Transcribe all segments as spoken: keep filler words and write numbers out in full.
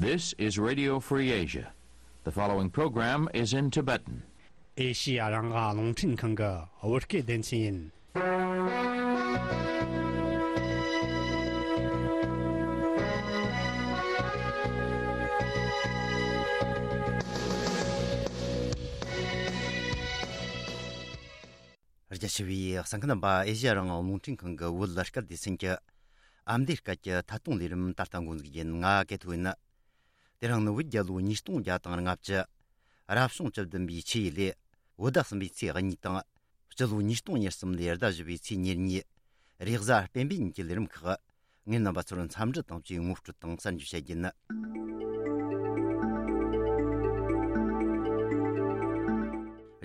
This is Radio Free Asia. The following program is in Tibetan. ཨེ་ཤི་ཡ་རང་དབང་རླུང་འཕྲིན་ཁང་གི་བོད་སྐད་སྡེ་ཚན་ཡིན། རྒྱ་ཆེ་བའི་གསན་མཁན་རྣམ་པ། ཨེ་ཤི་ཡ་རང་དབང་རླུང་འཕྲིན་ཁང་གི་བོད་སྐད་སྡེ་ཚན་གྱི་ཨ་མདོའི་སྐད་ཀྱི་ཐད་གཏོང་ལས་རིམ་ད་ལྟ་འགོ་འཛུགས་ཡིན། ང་ཀེ་ཐོ་ཡིན། དེ་རིང་ནི་བོད་རྒྱལ་ལོ་ཉིས་སྟོང་བརྒྱ་དང་ལྔ་བཅུ། རབ་བྱུང་བཅུ་བདུན་པའི་ཆུ་ཡོས་ལོའི་བོད་ཟླ་གསུམ་པའི་ཚེས་གཉིས་དང་། སྤྱི་ལོ་ཉིས་སྟོང་ཉེར་གསུམ་ལོའི་ཟླ་བཞི་པའི་ཚེས་ཉེར་གཉིས། རེས་གཟའ་སྤེན་པའི་ཉིན་གྱི་ལས་རིམ་ཁག་ངས་རྣམ་པ་ཚོར་འཚམས་འདྲི་དང་བཅས་ངོ་སྤྲོད་དང་གསར་འགྱུར་བཤད་རྒྱུ་ཡིན།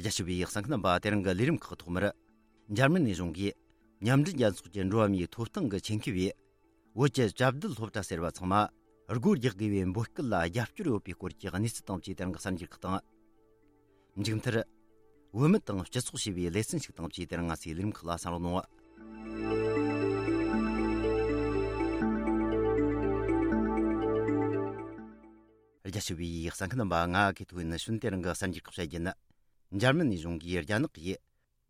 རྒྱ་ཆེ་བའི་གསན་མཁན་རྣམ་པ། དེ་རིང་གི་ལས་རིམ་ཁག་ཐོག་མར། འཇར་མན་ནས་གཞུང་གིས་མཉམ་འབྲེལ་རྒྱལ་ཚོགས་ཀྱི་འགྲོ་བ་མིའི་ཐོབ་ཐང་གི་ཆེད་མཁས་པས། བོད་ཀྱི་བཅའ་སྡོད་སློབ་གྲྭ་ཟེར་བ་ཚང་མ་སྒོ་རྒྱག་དགོས་པའི་འབོད་སྐུལ་ལ་རྒྱབ་སྐྱོར་ཡོད་པའི་སྐོར་གྱི་གནས་ཚུལ་དང་བཅས་དེ་རིང་གི་གསར་འགྱུར་ཁག་དང་། མཇུག་མཐར། བུད་མེད་དང་སྤྱི་ཚོགས་ཞེས་པའི་ལེ་ཚན་ཞིག་དང་བཅས་དེ་རིང་ང་ཚོའི་ལས་རིམ་ཁག་ལ་གསན་རོགས་གནང་། རྒྱ་ཆེ་བའི་གསན་མཁན་རྣམ་པ། ང་ཀེ་ཐོ་ཡིན། ནི་ཤུན་དེ་རིང་གི་གསར་འགྱུར་ཁག་བཤད་རྒྱུ་ཡིན། འཇར་མན་ནས་གཞུང་གིས་རྒྱ་ནག་གིས།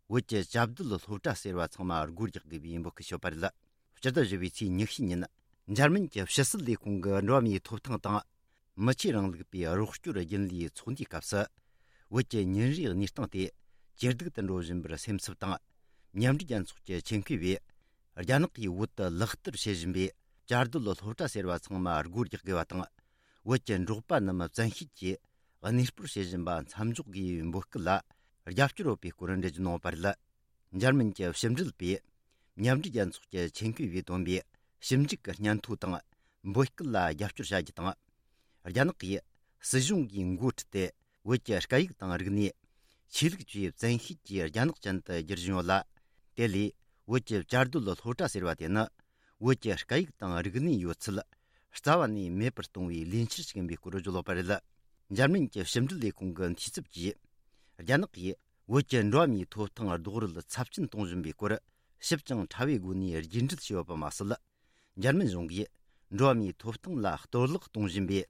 བོད་ཀྱི་བཅའ་སྡོད་སློབ་གྲྭ་ཟེར་བ་ཚང་མ་སྒོ་རྒྱག་དགོས་པའི་འབོད་སྐུལ་ཞུས་པ་རེད། སྤྱི་ཟླ་བཞི་པའི་ཚེས་ཉི་ཤུ་ཉིན། འཇར་མན་གྱི་ཕྱི་སྲིད་ལས་ཁུངས་ཀྱི་འགྲོ་བ་མིའི་ཐོབ་ཐང་དང་། མི་ཆོས་རིང་ལུགས་པའི་རོགས་སྐྱོར་རྒྱུན་ལས་ཚོགས་འདུའི་སྐབས་སུ། བོད་ཀྱི་ཉིན་རེའི་གནས་སྟངས་དེ་ཇེ་སྡུག་ཏུ་འགྲོ་བཞིན་པར་སེམས་འཚབ་དང་། མཉམ་འབྲེལ་རྒྱལ་ཚོགས་ཀྱི་ཆེད་མཁས་པས། རྒྱ་ནག་གིས་བོད་དུ་ལག་བསྟར་བྱེད་བཞིན་པའི་བཅའ་སྡོད་སློབ་གྲྭ་ཟེར་བ་ཚང་མ་སྒོ་རྒྱག་དགོས་པ་དང་། བོད་ཀྱི་འབྲོག་པ་རྣམས་བཙན་ཤེད་ཀྱིས་གནས་སྤོར་བྱེད་བཞིན་པ་མཚམས་འཇོག་དགོས་པའི་འབོད་སྐུལ་ལ་རྒྱབ་སྐྱོར་ཡོད་པའི་སྐོར་འགྲེལ་བརྗོད་གནང་བ་རེད། འཇར་མན་གྱི་ཕྱི་འབྲེལ་པས་མཉམ་འབྲེལ་རྒྱལ་ཚོགས་ཀྱི་ཆེད་མཁས་པས་བཏོན་པའི་ཞིབ་འཇུག་གི་སྙན་ཐོ་དང་འབོད་སྐུལ་ལ་རྒྱབ་སྐྱོར་བྱ་རྒྱུ་དང་། རྒྱ་ནག་གིས་སྲིད་གཞུང་གིས་འགོ་ཁྲིད་དེ་བོད་ཀྱི་སྐད་ཡིག་དང་རིག་གནས། ཆོས་ལུགས་བཅས་བཙན་ཤེད་ཀྱིས་རྒྱ་ནག་ཅན་དུ་བསྒྱུར་བཞིན་ཡོད་ལ། དེ་ལས་བོད་ཀྱི་བཅའ་སྡོད་སློབ་གྲྭ་ཟེར་བ་དེ་ནི། བོད་ཀྱི་སྐད་ཡིག་དང་རིག་གནས་ཡོད་ཚད་རྩ་བ་ནས་མེད་པར་གཏོང་བའི་ལས་འཆར་ཞིག་ཡིན་པའི་སྐོར་བརྗོད་ཡོད་པ་རེད། འཇར་མན་གྱི་ཕྱི་འབྲེལ་ལས་ཁུངས་ཀྱི་འཐུས་ཚབ་ཀྱིས། རྒྱ་ནག་གིས་བོད་ཀྱི་འགྲོ་བ་མིའི་ཐོབ་ཐང་རྡོག་རོལ་ཚབས་ཆེན་གཏོང་བཞིན་པའི་སྐོར་ཞིབ་ཅིང་ཕྲ་བའི་སྒོ་ནས་རྒྱས་འགྲེལ་བྱས་ཡོད་པ་མ་ཟད། འཇར་མན་གཞུང་གིས་འགྲོ་བ་མིའི་ཐོབ་ཐང་ལ་གཏོར་བརླག་གཏོང་བཞིན་པའི་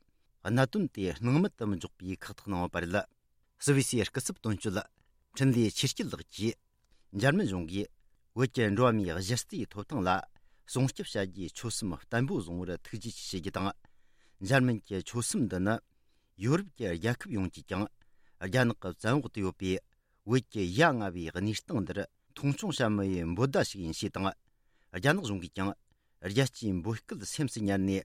གནད་དོན་དེ་སྣང་མེད་དུ་མི་འཇོག་པའི་ཁག་ཐེག་གནང་ཡོད་པ་རེད། སུད་སི་སྐུ་ཚབ་དོན་གཅོད་འཕྲིན་ལས་ཆོས་སྐྱིད་ལགས་ཀྱིས། འཇར་མན་གཞུང་གིས་བོད་ཀྱི་འགྲོ་བ་མིའི་གཞི་རྩའི་ཐོབ་ཐང་ལ་སྲུང་སྐྱོབ་བྱ་རྒྱུའི་ཆོད་སེམས་བརྟན་པོ་བཟུང་བར་ཐུགས་རྗེ་ཆེ་ཞུ་རྒྱུ་དང་། འཇར་མན་གྱི་ཆོད་སེམས་འདི་ནི་ཡོ་རོབ་ཀྱི་རྒྱལ་ཁབ་ཡོངས་ཀྱིས་ཀྱང་རྒྱ་ནག་གི་བཙན་འོག་ཏུ་ཡོད་པའི་བོད་ཀྱི་ཡ་ང་བའི་གནས་སྟངས་འདིར་མཐོང་ཆུང་བྱ་མི་ཡི་འབོད་བརྡ་ཞིག་ཡིན་ཞེས་དང་། རྒྱ་ནག་གཞུང་གིས་ཀྱང་། རྒྱལ་སྤྱིའི་འབོད་སྐུལ་སེམས་སུ་ཉར་ནས།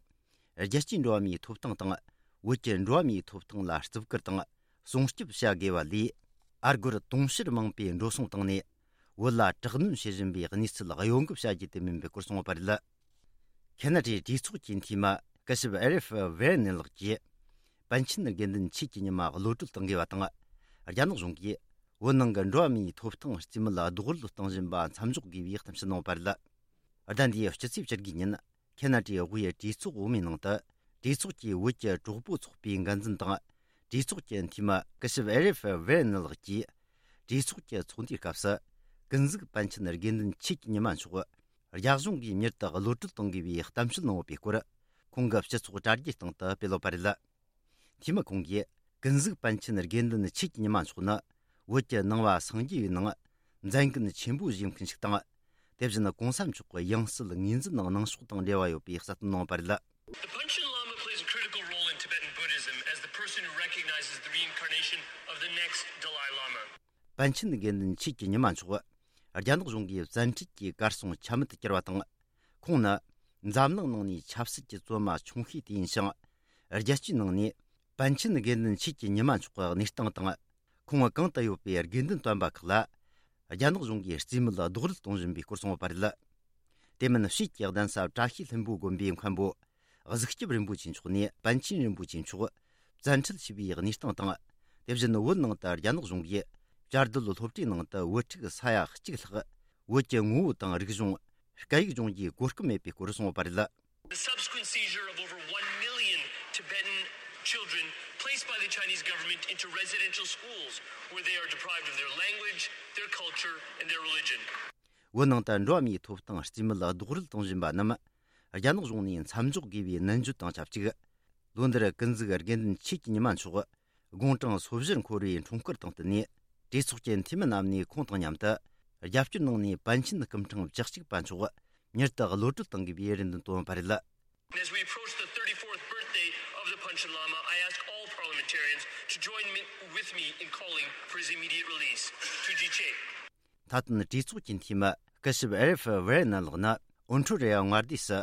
རྒྱལ་སྤྱིའི་འགྲོ་བ་མིའི་ཐོབ་ཐང་དང་། བོད་ཀྱི་འགྲོ་བ་མིའི་ཐོབ་ཐང་ལ་བརྩི་བཀུར་དང་སྲུང་སྐྱོབ་བྱ་དགོས་པ་ལས། ཨ་སྒོར་དུང་ཕྱུར་མང་པོས་འགྲོ་སོང་བཏང་ནས། བོད་ལ་དྲག་གནོན་བྱེད་བཞིན་པའི་གནས་ཚུལ་གཡོ་འགུལ་བྱ་རྒྱུ་དེ་མིན་པའི་སྐོར་གསུངས་པ་རེད། ཁེ་ན་ཌའི་གྲོས་ཚོགས་ཀྱི་འཐུས་མི་སྐུ་ཞབས་ཨེ་རིབ་ཝེ་ནེ་ལགས་ཀྱིས། པཎ་ཆེན་དགེ་འདུན་ཆོས་ཀྱི་ཉི་མ་གློད་གྲོལ་གཏོང་དགོས་པ་དང་། རྒྱ་ནག་གཞུང་གིས་བོད་ནང་གི་འགྲོ་བ་མིའི་ཐོབ་ཐང་རྩིས་མེད་རྡོག་རོལ་གཏོང་བཞིན་པ་མཚམས་འཇོག་དགོས་པའི་གཏམ་བཤད་གནང་བ་རེད། ཟླ་འདིའི་སྤྱི་ཚེས་བཅུ་དགུ་ཉིན། ཁེ་ན་ཌའི་དབུས་གྲོས་ཚོགས་འོག་མའི་ནང་དུ། གྲོས་ཚོགས་ཀྱི་བོད་ཀྱི་གྲོགས་པོ་ཚོགས་པའི་འགན་འཛིན་དང་། གྲོས་ཚོགས་ཀྱི་འཐུས་མི་སྐུ་ཞབས་ཨེ་རིབ་ཝེ་ནེ་ལགས་ཀྱིས། གྲོས་ཚོགས་ཀྱི་ཚོགས་འདུའི་སྐབས་སུ། ཀུན་གཟིགས་པཎ་ཆེན་དགེ་འདུན་ཆོས་ཀྱི་ཉི་མ་མཆོག་རྒྱ་གཞུང་གིས་མྱུར་དུ་གློད་གྲོལ་གཏོང་དགོས་པའི་གཏམ་བཤད་གནང་ཡོད་པའི་སྐོར། ཁོང་གི་སྤྱི་ཚོགས་དྲ་རྒྱའི་སྟེང་དུ་སྤེལ་ཡོད་པ་རེད། འཐུས་མི་ཁོང་གིས། ཀུན་གཟིགས་པཎ་ཆེན་དགེ་འདུན་ཆོས་ཀྱི་ཉི་མ་མཆོག་ནི། བོད་ཀྱི་ནང་པ་སངས་རྒྱས་པའི་ནང་མཛད་འགན་ཆེན་པོ་བཞེས་མཁན་ཞིག་དང་། དེ་བཞིན་གོང་ས་མཆོག་གི་ཡང་སྲིད་ངོས་འཛིན་ནང་གནང་ཕྱོགས་དང་འབྲེལ་བ་ཡོད་པའི་གསལ་སྟོན་གནང་བ་རེད། The Panchen Lama plays a critical role in Tibetan Buddhism as the person who recognizes the reincarnation of the next Dalai Lama. པཎ་ཆེན་དགེ་འདུན་ཆོས་ཀྱི་ཉི་མ་མཆོག་རྒྱ་ནག་གཞུང་གིས་བཙན་ཁྲིད་ཀྱིས་གར་སོང་ཆ་མེད་དུ་གྱུར་བ་དང་། ཁོང་ནི་འཛམ་གླིང་ནང་ནས་ཆབ་སྲིད་ཀྱི་བཙོན་མ་ཆུང་ཤོས་དེ་ཡིན་ཞིང་། རྒྱལ་སྤྱིའི་ནང་ནས་པཎ་ཆེན་དགེ་འདུན་ཆོས་ཀྱི་ཉི་མ་མཆོག་གི་གནས་སྟངས་དང་། ཁོང་གང་དུ་ཡོད་པའི་དགེ་འདུན་སྟོན་པ་ཁག་ལ། རྒྱ་ནག་གཞུང་གིས་རྩིས་མེད་རྡོག་རོལ་གཏོང་བཞིན་པའི་སྐོར་གསུངས་ཡོད་པ་རེད། དེ་མིན་ཕྱིས་ཀྱི་གདན་ས་བཀྲ་ཤིས་ལྷུན་པོའི་དགོན་པའི་མཁན་པོ། གཟིགས་སྐྱབས་རིན་པོ་ཆེ་མཆོག་ནས་པཎ་ཆེན་རིན་པོ་ཆེ་མཆོག་བཙན་ཁྲིད་བྱས་པའི་གནས་སྟངས་དང་། དེ་བཞིན་བོད་ནང་དུ་རྒྱ་ནག་གཞུང་གིས་བཅའ་སྡོད་སློབ་གྲྭའི་ནང་དུ་བོད་ཕྲུག་ས་ཡ་གཅིག་ལྷག་བོད་ཀྱི་ངོ་བོ་དང་རིག་གཞུང་། སྐད་ཡིག་སྦྱོང་རྒྱུའི་གོ་སྐབས་མེད་པའི་སྐོར་གསུངས་ཡོད་པ་རེད། The subsequent seizure of over one million Tibetan children placed by the Chinese government into residential schools where they are deprived of their language, their culture, and their religion. བོད་ནང་དུ་འགྲོ་བ་མིའི་ཐོབ་ཐང་རྩིས་མེད་རྡོག་རོལ་གཏོང་བཞིན་པ་རྣམས། རྒྱ་ནག་གཞུང་ནས་མཚམས་འཇོག་དགོས་པའི་ནན་བརྗོད་དང་ཆབས་ཅིག་ལོ་འདིར་ཀུན་གཟིགས་དགེ་འདུན་ཆོས་ཀྱི་ཉི་མ་མཆོག་དགུང་གྲངས་སོ་བཞིར་འཁོར་བའི་འཁྲུངས་སྐར་དང་བསྟུན་ནས། གྲོས་ཚོགས་ཀྱི་འཐུས་མི་རྣམས་ནས་ཁོང་དང་མཉམ་དུ་རྒྱབ་སྐྱོར་གནང་ནས་པཎ་ཆེན་སྐུ་ཕྲེང་བཅུ་གཅིག་པ་མཆོག་མྱུར་དུ་གློད་གྲོལ་གཏོང་དགོས་པའི་རེ་འདུན་བཏོན་པ་རེད། As we approach the thirty-fourth birthday of the Panchen Lama, I ask all parliamentarians to join me, with me in calling for his immediate release. Tuji che. མཐའ་དོན་གྲོས་ཚོགས་ཀྱི་འཐུས་མི་སྐུ་ཞབས་ཨེ་རེ་ཧྥི་ཝེ་རེ་ནན་ལགས་ནི་ཨོན་ཁྲོ་རེ་ཡ་མངའ་སྡེ་སུ་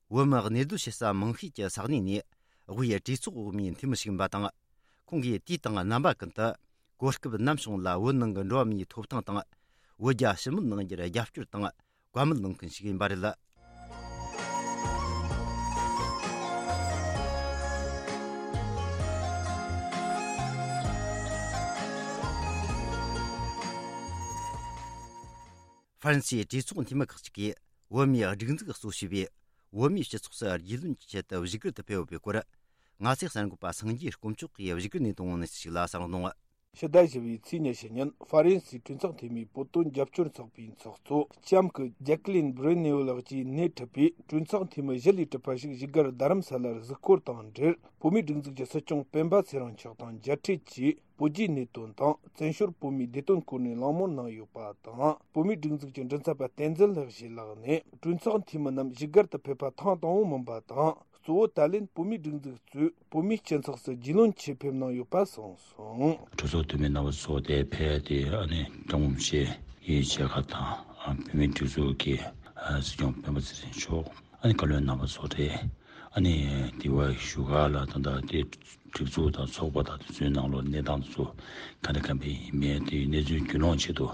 བོད་མི་གནས་སྡོད་བྱེད་ས་མང་ཤོས་ཀྱི་ས་གནས་ནས་དབུས་གྲོས་ཚོགས་འོག་མའི་འཐུས་མི་ཞིག་ཡིན་པ་དང་། ཁོང་གིས་དུས་དང་རྣམ་པ་ཀུན་ཏུ་གོ་སྐབས་ནམ་བྱུང་ལ་བོད་ནང་གི་འགྲོ་བ་མིའི་ཐོབ་ཐང་དང་། བོད་རྒྱ་ཞི་མོལ་གནང་རྒྱུར་རྒྱབ་སྐྱོར་དང་བཀའ་མོལ་གནང་མཁན་ཞིག་ཡིན་པ་རེད། ཧྥ་རན་སིའི་གྲོས་ཚོགས་འཐུས་མི་ཁག་ཅིག་གིས་བོད་མིའི་སྒྲིག་འཛུགས་གཙོ་བྱས་པའི་བོད་མིའི་སྤྱི་ཚོགས་སུ་རྒྱུས་ལོན་གྱི་ཆེད་དུ་བཞུགས་སྒར་དུ་ཕེབས་ཡོད་པའི་སྐོར། ང་ཚོའི་གསར་འགོད་པ་སངས་རྒྱས་དཀོན་མཆོག་གིས་བཞུགས་སྒར་ནས་བཏང་བའི་གནས་ཚུལ་ཞིག་ལ་གསན་རོགས་གནང་། ཕྱི་ཟླ་བཞི་པའི་ཚེས་ཉི་ཤུ་ཉིན་ཧྥ་རན་སིའི་གྲོས་ཚོགས་འཐུས་མིའི་བོད་དོན་རྒྱབ་སྐྱོར་ཚོགས་པའི་ཚོགས་གཙོ་ལྕམ་སྐུ་ཇེ་ཀི་ལིན་བྷི་རེ་ནེའུ་ལགས་ཀྱིས་སྣེ་ཁྲིད་པའི་གྲོས་ཚོགས་འཐུས་མི་བཞི་ལས་གྲུབ་པ་ཞིག་བཞུགས་སྒར་རྡ་རམ་ས་ལར་གཟིགས་སྐོར་དང་འབྲེལ། བོད་མིའི་སྒྲིག་འཛུགས་ཀྱི་སྲིད་སྐྱོང་སྤེན་པ་ཚེ་རིང་མཆོག་དང་མཇལ་འཕྲད་ཀྱིས། བོད་བརྒྱུད་གནས་དོན་དང་བཙན་བྱོལ་བོད་མིའི་བདེ་དོན་སྐོར་ནས་གླེང་མོལ་གནང་ཡོད་པ་དང་། བོད་མིའི་སྒྲིག་འཛུགས་ཀྱི་མགྲིན་ཚབ་པ་བསྟན་འཛིན་ལྷག་ཞུའི་ལག་ནས་གྲོས་ཚོགས་འཐུས་མི་རྣམས་བཞུགས་སྒར་དུ་ཕེབས་པ་ཐེངས་དང་པོ་མིན་པ་དང་། གཙོ་བོ་ད་ལན་བོད་མིའི་སྒྲིག་འཛུགས་གཙོས་བོད་མིའི་སྤྱི་ཚོགས་སུ་རྒྱུས་ལོན་ཆེད་ཕེབས་གནང་ཡོད་པ་གསུངས་སོང་། གྲོས་ཚོགས་འཐུས་མི་རྣམ་པ་ཚོ་དེ་ཕེབས་ཏེ་ཨ་ནི་ཀྲུང་ཕྱི་ཡི་མཇལ་ཁ་དང་། བོད་མིའི་སྒྲིག་འཛུགས་ཀྱི་སྲིད་སྐྱོང་སྤེན་པ་ཚེ་རིང་མཆོག་ཨ་ནི་བཀའ་བློན་རྣམ་པ་ཚོ་རེད། ཨ་ནི་དེ་བ་བཞུགས་སྒར་ལ་ད་ལྟ་དེ་སྒྲིག་འཛུགས་དང་ཚོགས་པ་དང་དེ་ཚོའི་ནང་ལོགས་གནས་སྟངས་དེ་ཚོ་ག་འདྲ་ག་འདྲ་ཡིན་མིན་དེའི་གནས་ཚུལ་རྒྱུས་ལོན་ཆེད་དུ་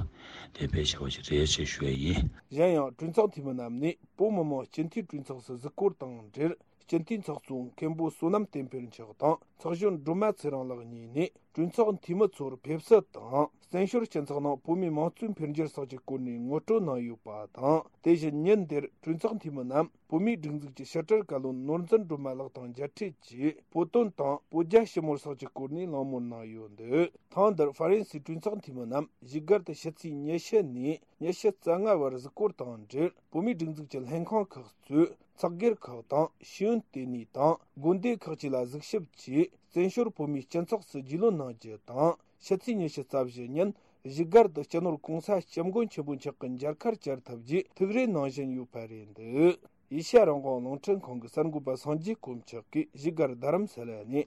དེ་ཕེབས་བཞག་པ་ཞིག་རེད་ཅེས་ཞུ་ཡ་ཡིན། གཞན་ཡང་གྲོས་ཚོགས་འཐུས་མི་རྣམས་ནས་བོད་མི་མང་སྤྱི་འཐུས་གྲོས་ཚོགས་སུ་གཟིགས་སྐོར་དང་འབྲེལ། སྤྱི་འཐུས་ཚོགས་གཙོ་མཁན་པོ་བསོད་ནམས་བསྟན་འཕེལ་མཆོག་དང་ཚོགས་གཞོན་སྒྲོལ་མ་ཚེ་རིང་ལགས་གཉིས་ནས། གྲོས་ཚོགས་འཐུས་མི་ཚོར་ཕེབས་བསུ་དང་། བཙན་བྱོལ་སྤྱི་ཚོགས་ནང་བོད་མིའི་དམངས་གཙོའི་འཕེལ་འགྱུར་སོགས་ཀྱི་སྐོར་ནས་ངོ་སྤྲོད་གནང་ཡོད་པ་དང་། དེ་བཞིན་ཉིན་དེར་གྲོས་ཚོགས་འཐུས་མི་རྣམས་བོད་མིའི་སྒྲིག་འཛུགས་ཀྱི་ཕྱི་དྲིལ་བཀའ་བློན་ནོར་འཛིན་སྒྲོལ་མ་ལགས་དང་མཇལ་འཕྲད་ཀྱིས། བོད་དོན་དང་བོད་རྒྱ་ཞི་མོལ་སོགས་ཀྱི་སྐོར་ནས་གླེང་མོལ་གནང་ཡོད་འདུག་ཐེངས་འདིར་ཧྥ་རན་སིའི་གྲོས་ཚོགས་འཐུས་མི་རྣམས་བཞུགས་སྒར་དུ་ཕྱི་ཚེས་ཉི་ཤུ་ནས་ཉི་ཤུ་རྩ་ལྔ་བར་གཟིགས་སྐོར་དང་འབྲེལ། བོད་མིའི་སྒྲིག་འཛུགས་ཀྱི་ལྷན་ཁང་ཁག་གཙོས། ཚོགས་སྒེར་ཁག་དང་ཤེས་ཡོན་ལྟེ་གནས་དང་དགོན་སྡེ་ཁག་ཅིག་ལ་གཟིགས་ཞིབ་ཀྱིས་བཙན་བྱོལ་བོད་མིའི་སྤྱི་ཚོགས་སུ་རྒྱུས་ལོན་གནང་རྒྱུ་དང་། ཕྱི་ཚེས་ཉི་ཤུ་རྩ་བཞི་ཉིན་བཞུགས་སྒར་དུ་སྤྱི་ནོར་༸གོང་ས་༸སྐྱབས་མགོན་ཆེན་པོ་མཆོག་གི་མཇལ་ཁར་བཅར་ཐུབ་རྒྱུའི་ཐུགས་རེ་གནང་བཞིན་ཡོད་པ་རེད་འདུག་ཨེ་ཤ་ཡ་རང་དབང་རླུང་འཕྲིན་ཁང་གི་གསར་འགོད་པ་སངས་རྒྱས་དཀོན་མཆོག་གིས་བཞུགས་སྒར་རྡ་རམ་ས་ལ་ནས།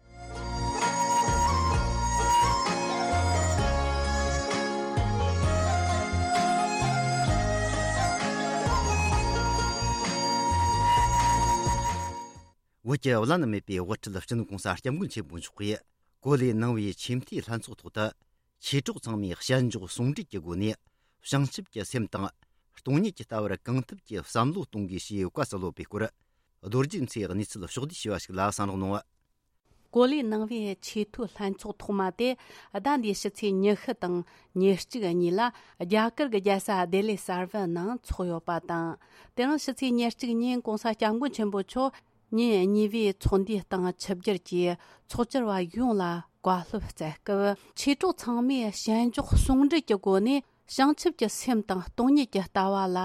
བོད་ཀྱི་བླ་ན་མེད་པའི་དབུ་ཁྲིད་སྤྱི་ནོར་༸གོང་ས་༸སྐྱབས་མགོན་ཆེན་པོ་མཆོག་གིས་གོ་ལེ་གནང་བའི་ཆེས་མཐོའི་ལྷན་ཚོགས་ཐོག་ཏུ། མཆེད་གྲོགས་ཚང་མས་ཞལ་འཇོག་ཟུང་འབྲེལ་གྱི་སྒོ་ནས་བྱང་ཆུབ་ཀྱི་སེམས་དང་སྟོང་ཉིད་ཀྱི་ལྟ་བར་གང་ཐུབ་ཀྱིས་བསམ་བློ་གཏོང་དགོས་ཞེས་བཀའ་སྩལ་ཡོད་པའི་སྐོར། རྡོ་རྗེ་མཚོའི་གནས་ཚུལ་ཕྱོགས་བསྡུས་བྱས་པ་ཞིག་ལ་གསན་རོགས་གནང་། གོ་ལའི་ནང་པའི་ཆེས་མཐོའི་ལྷན་ཚོགས་ཐོག་མ་དེ་ཟླ་འདིའི་ཕྱི་ཚེས་ཉི་ཤུ་དང་ཉེར་གཅིག་གཉིས་ལ་རྒྱ་གར་གྱི་རྒྱལ་ས་ལྡི་ལི་གསར་པའི་ནང་འཚོགས་ཡོད་པ་དང་། དེ་རིང་ཕྱི་ཚེས་ཉེར་གཅིག་ཉིན་༸གོང་ས་༸སྐྱབས་མགོན་ཆེན་པོ་མཆོག་ཉིན་གཉིས་པའི་ཚོགས་འདུའི་སྟེང་ཆིབས་བསྒྱུར་གྱིས་ཚོགས་བཅར་བ་ཡོངས་ལ་བཀའ་སློབ་སྩལ་སྐབས། མཆེད་གྲོགས་ཚང་མས་ཞལ་འཇོག་ཟུང་འབྲེལ་གྱི་སྒོ་ནས་བྱང་ཆུབ་ཀྱི་སེམས་དང་སྟོང་ཉིད་ཀྱི་ལྟ་བ་ལ་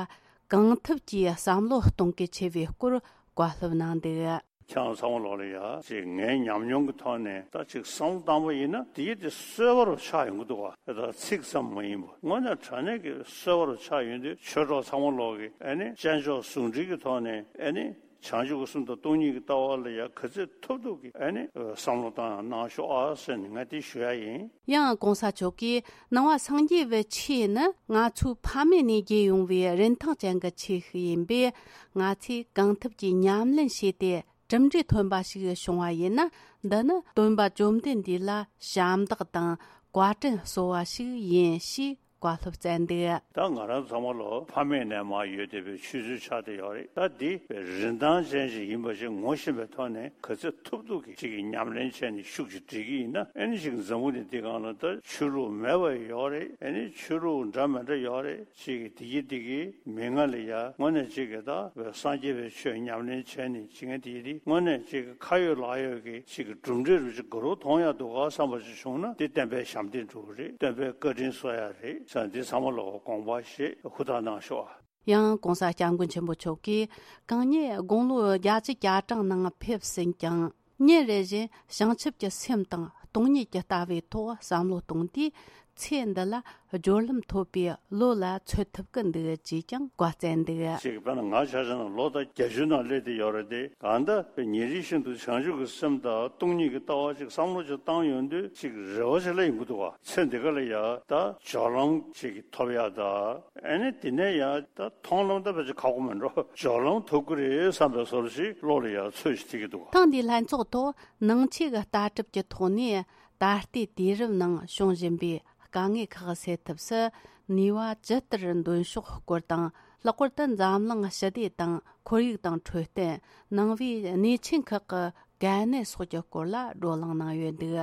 གང་ཐུབ་ཀྱིས་བསམ་བློ་གཏོང་གལ་ཆེ་བའི་སྐོར་བཀའ་སློབ་གནང་འདུག་ཁྱེད་རང་ཚང་མ་ལོག་ལ་ཡ་ཅིག་ངའི་ཉམས་མྱོང་གི་ཐོག་ནས་ད་ཅིག་བསམ་བློ་བཏང་པ་ཡིན་ན་དེ་ཡི་དེ་གསོལ་བ་རུ་ཆགས་ཡོང་གི་འདུག་བ། ད་ཚིག་ཙམ་མ་ཡིན་པ་དངོས་གནས་དྲང་གནས་ཀྱི་གསོལ་བ་རུ་ཆགས་ཡོང་དུས་ཆོས་གྲོགས་ཚང་མ་ལོག་གི་ཨ་ནི་བྱང་ཆུབ་ཟུང་འབྲེལ་གྱི་ཐོག་ནས་ཨ་ནི་བྱང་ཆུབ་ཀྱི་སེམས་དང་སྟོང་ཉིད་ཀྱི་ལྟ་བ་ལ་ཡ་ག་ཚོད་ཐུབ་ཐུབ་ཀྱི་ཨ་ནི་བསམ་བློ་བཏང་ཡང་གནང་ཤོག་ཨ་ཟེར་ནས་ང་དེ་ཞུ་ཡ་ཡིན། ཡང་༸གོང་ས་མཆོག་གིས་ནང་པ་སངས་རྒྱས་པའི་ཆོས་ནི་ང་ཚོའི་ཕ་མེས་ནས་རྒྱས་ཡོང་བའི་རིན་ཐང་ཅན་གྱི་ཆོས་ཤིག་ཡིན་པས། ང་ཚོས་གང་ཐུབ་ཀྱིས་ཉམས་ལེན་བྱས་ཏེ། གྲུབ་འབྲས་ཐོན་པ་ཞིག་བྱུང་བ་ཡིན་ན། འདི་ནི་སྟོན་པ་བཅོམ་ལྡན་འདས་ལ་ཞབས་འདེགས་དང་བཀའ་དྲིན་གསོ་བ་ཞིག་ཡིན་ཞེས་བཀའ་སློབ་སྩལ་འདུག་ད་ང་རང་ཚང་མ་ལོ་ཕ་མེས་ནས་མར་ཡོད་བསྡད་པའི་ཆོས་ཚུལ་ཆགས་བསྡད་ཡོད་རེད། ད་འདི་རིན་ཐང་ཅན་ཞིག་ཡིན་པ་ཞིག་ངོ་ཤེས་པའི་ཐོག་ནས་ག་ཚོད་ཐུབ་ཐུབ་ཀྱིས་ཅིག་གི་ཉམས་ལེན་བྱས་ནས་ཤུགས་ཀྱིས་སྒྲིལ་གྱི་ཡིན་ན། ཨ་ནི་ཅིག་འཛམ་བུ་གླིང་འདི་སྒང་ལ་ད་ཆོས་ལུགས་མེད་པ་ཡོད་རེད། ཨ་ནི་ཆོས་ལུགས་འདྲ་མི་འདྲ་ཡོད་རེད། ཅིག་གི་དེ་གི་དེ་གི་མི་ང་ལ་ཡ་དངོས་གནས་ཅིག་གི་ད་སངས་རྒྱས་པའི་ཆོས་ཉམས་ལེན་བྱས་ནས་ཅིག་གི་དེ་གི་དེ་དངོས་གནས་ཅིག་གི་ཁ་ཡོད་ལག་ཡོད་ཀྱི་ཅིག་གི་གྲུབ་འབྲས་རུ་ཅིག་ག་རུ་མཐོང་ཡ་འདུག་ག་བསམ་པ་ཅིག་བྱུང་ན། དེ་སྟོན་པའི་ཞབས་འདེགས་འགྲོ་གི་རེད། སྟོན་པའི་བཀའ་དྲིན་གསོ་ཡ་རེད་ཟེར་ན། འདི་ཚང་མ་ལོག་དགོངས་པ་བཞེས་ཧུར་ཐག་གནང་ཤོག་ཨ། ཡང་༸གོང་ས་༸སྐྱབས་མགོན་ཆེན་པོ་མཆོག་གིས་གང་ཉིད་དགུང་ལོ་བརྒྱད་ཅུ་གྱ་གྲངས་ནང་ཕེབས་ཟིན་ཀྱང་ ཉིན་རེ་བཞིན་བྱང་ཆུབ་ཀྱི་སེམས་དང་སྟོང་ཉིད་ཀྱི་ལྟ་བའི་ཐོག་བསམ་བློ་གཏོང་དུས། ཚེ་འདི་ལ་སྦྱོར་ལམ་ཐོབ་པའི་བློ་ལ་ཚོད་ཐུབ་ཀྱི་འདུག་ཅེས་ཀྱང་བཀའ་སྩལ་འདུག་ཅིག་དཔེར་ན་ང་ཆ་བཞག་ན་ལོ་དང་བརྒྱད་ཅུ་ནང་སླེབས་བསྡད་ཡོད་རེད་དེ། གང་ལྟར་ཉིན་རེ་བཞིན་དུ་བྱང་ཆུབ་ཀྱི་སེམས་དང་སྟོང་ཉིད་ཀྱི་ལྟ་བ་ཅིག་བསམ་བློ་ཅིག་བཏང་ཡོང་དུས་ཅིག་རེ་བ་ཅིག་སླེབས་ཡོང་གི་འདུག་བ། ཚེ་འདི་ག་ལ་ཡ་ད་སྦྱོར་ལམ་ཅིག་ཐོབ་ཡ་ད། ཨ་ནི་དེ་ནས་ཡང་ད་མཐོང་ལམ་ད་ཕལ་ཆེར་ཁག་པོ་མིན་འགྲོ། སྦྱོར་ལམ་ཐོབ་ཀྱི་རེད་བསམ་པའི་བཟོ་འདྲ་ཞིག་བློ་ལ་ཡང་ཚོད་ཅིག་ཐིག་གི་འདུག་ཐེངས་འདིའི་ལྷན་ཚོགས་ཐོག་ནང་ཆོས་ཀྱི་ལྟ་གྲུབ་ཀྱི་ཐོག་ནས་ད་ལྟའི་དུས་རབས་ནང་བྱུང་བཞིན་པའི་དཀའ་ངལ་ཁག་སེལ་ཐབས་སུ་ནུས་པ་ཇི་ལྟར་འདོན་ཕྱོགས་སྐོར་དང་། ལྷག་པར་དུ་འཛམ་གླིང་ཞི་བདེ་དང་ཁོར་ཡུག་དང་འཕྲོད་བསྟེན། ནང་པའི་གནས་ཆེན་ཁག་གི་གལ་གནད་སོགས་ཀྱི་སྐོར་ལ་བགྲོ་གླེང་གནང་ཡོད་འདུག་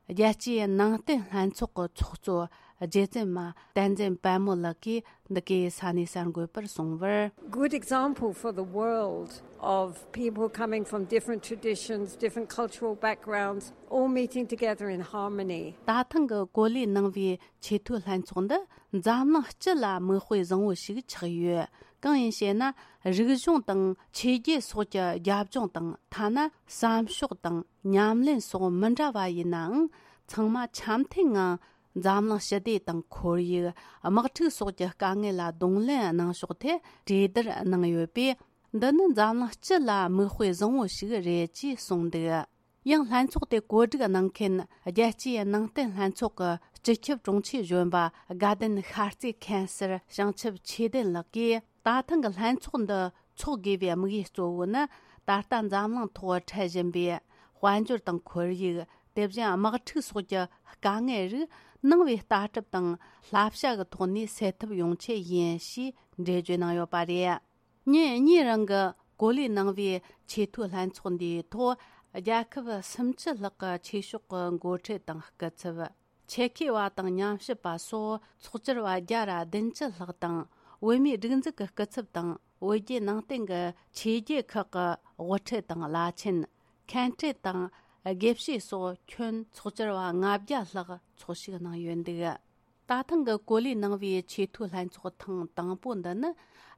རྒྱལ་སྤྱིའི་ནང་བསྟན་ལྷན་ཚོགས་ཀྱི་ཚོགས་གཙོ་རྗེ་བཙུན་མ་བསྟན་འཛིན་དཔལ་མོ་ལགས་ཀྱིས་འདི་གའི་ས་གནས་གསར་འགོད་པར་གསུངས་པར། Good example for the world of people coming from different traditions, different cultural backgrounds, all meeting together in harmony. ད་ཐེངས་ཀྱི་གོ་ལའི་ནང་པའི་ཆེས་མཐོའི་ལྷན་ཚོགས་འདི་འཛམ་གླིང་སྤྱི་ལ་མིག་དཔེ་བཟང་བོ་ཞིག་ཆགས་ཡོད། གང་ཡིན་ཞེ་ན། རིག་གཞུང་དང་ཆོས་བརྒྱུད་སོགས་ཀྱི་རྒྱབ་ལྗོངས་དང་། ཐ་ན་བསམ་ཕྱོགས་དང་ཉམས་ལེན་སོགས་མི་འདྲ་བ་ཡིན་ནའང་། ཚང་མ་འཆམ་མཐུན་ངང་འཛམ་གླིང་ཞི་བདེ་དང་ཁོར་ཡུག་དམག་འཁྲུག་སོགས་ཀྱི་དཀའ་ངལ་ལ་གདོང་ལེན་གནང་ཕྱོགས་ཐད་གྲོས་བསྡུར་གནང་ཡོད་པས། འདི་ནི་འཛམ་གླིང་སྤྱི་ལ་མིག་དཔེ་བཟང་བོ་ཞིག་རེད་ཅེས་གསུངས་འདུག་ཡང་ལྷན་ཚོགས་དེ་གོ་སྒྲིག་གནང་མཁན་རྒྱལ་སྤྱིའི་ནང་བསྟན་ལྷན་ཚོགས་ཀྱི་སྤྱི་ཁྱབ་དྲུང་ཆེ་གཞོན་པ་དགའ་ལྡན་ཤར་རྩེ་མཁན་ཟུར་བྱང་ཆུབ་ཆོས་ལྡན་ལགས་ཀྱིས། ད་ཐེངས་ཀྱི་ལྷན་ཚོགས་འདི་འཚོགས་དགོས་པའི་དམིགས་ཡུལ་གཙོ་བོ་ནི། ད་ལྟ་འཛམ་གླིང་ཐོག་འཕྲད་བཞིན་པའི་དཔལ་འབྱོར་དང་ཁོར་ཡུག་དེ་བཞིན་དམག་འཁྲུག་སོགས་ཀྱི་དཀའ་ངལ་རིགས་ནང་པའི་ལྟ་གྲུབ་དང་བསླབ་བྱ་གི་ཐོག་ནས་སེལ་ཐབས་ཡོང་ཆེད་ཡིན་ཞེས་འགྲེལ་བརྗོད་གནང་ཡོད་པ་རེད། ཉིན་གཉིས་རིང་གི་གོ་ལའི་ནང་པའི་ཆེས་མཐོའི་ལྷན་ཚོགས་འདིའི་ཐོག་རྒྱལ་ཁབ་སུམ་ཅུ་ལྷག་གི་ཆོས་ཕྱོགས་ཀྱི་འགོ་ཁྲིད་དང་སྐུ་ཚབ། ཆེད་མཁས་པ་དང་ཉམས་ཞིབ་པ་སོགས་ཚོགས་བཅར་བ་བརྒྱ་ར་བདུན་ཅུ་ལྷག་དང་། བོད་མིའི་སྒྲིག་འཛུགས་ཀྱི་སྐུ་ཚབ་དང་། བོད་བརྒྱུད་ནང་བསྟན་གྱི་ཆོས་བརྒྱུད་ཁག་གི་དབུ་ཁྲིད་དང་བླ་ཆེན། མཁན་སྤྲུལ་དང་དགེ་བཤེས་སོགས་ཁྱོན་ཚོགས་བཅར་བ་ལྔ་བརྒྱ་ལྷག་ཚོགས་ཞུགས་གནང་ཡོད་འདུག་ད་ཐེངས་ཀྱི་གོ་ལའི་ནང་པའི་ཆེས་མཐོའི་ལྷན་ཚོགས་ཐེངས་དང་པོ་འདི་ནི།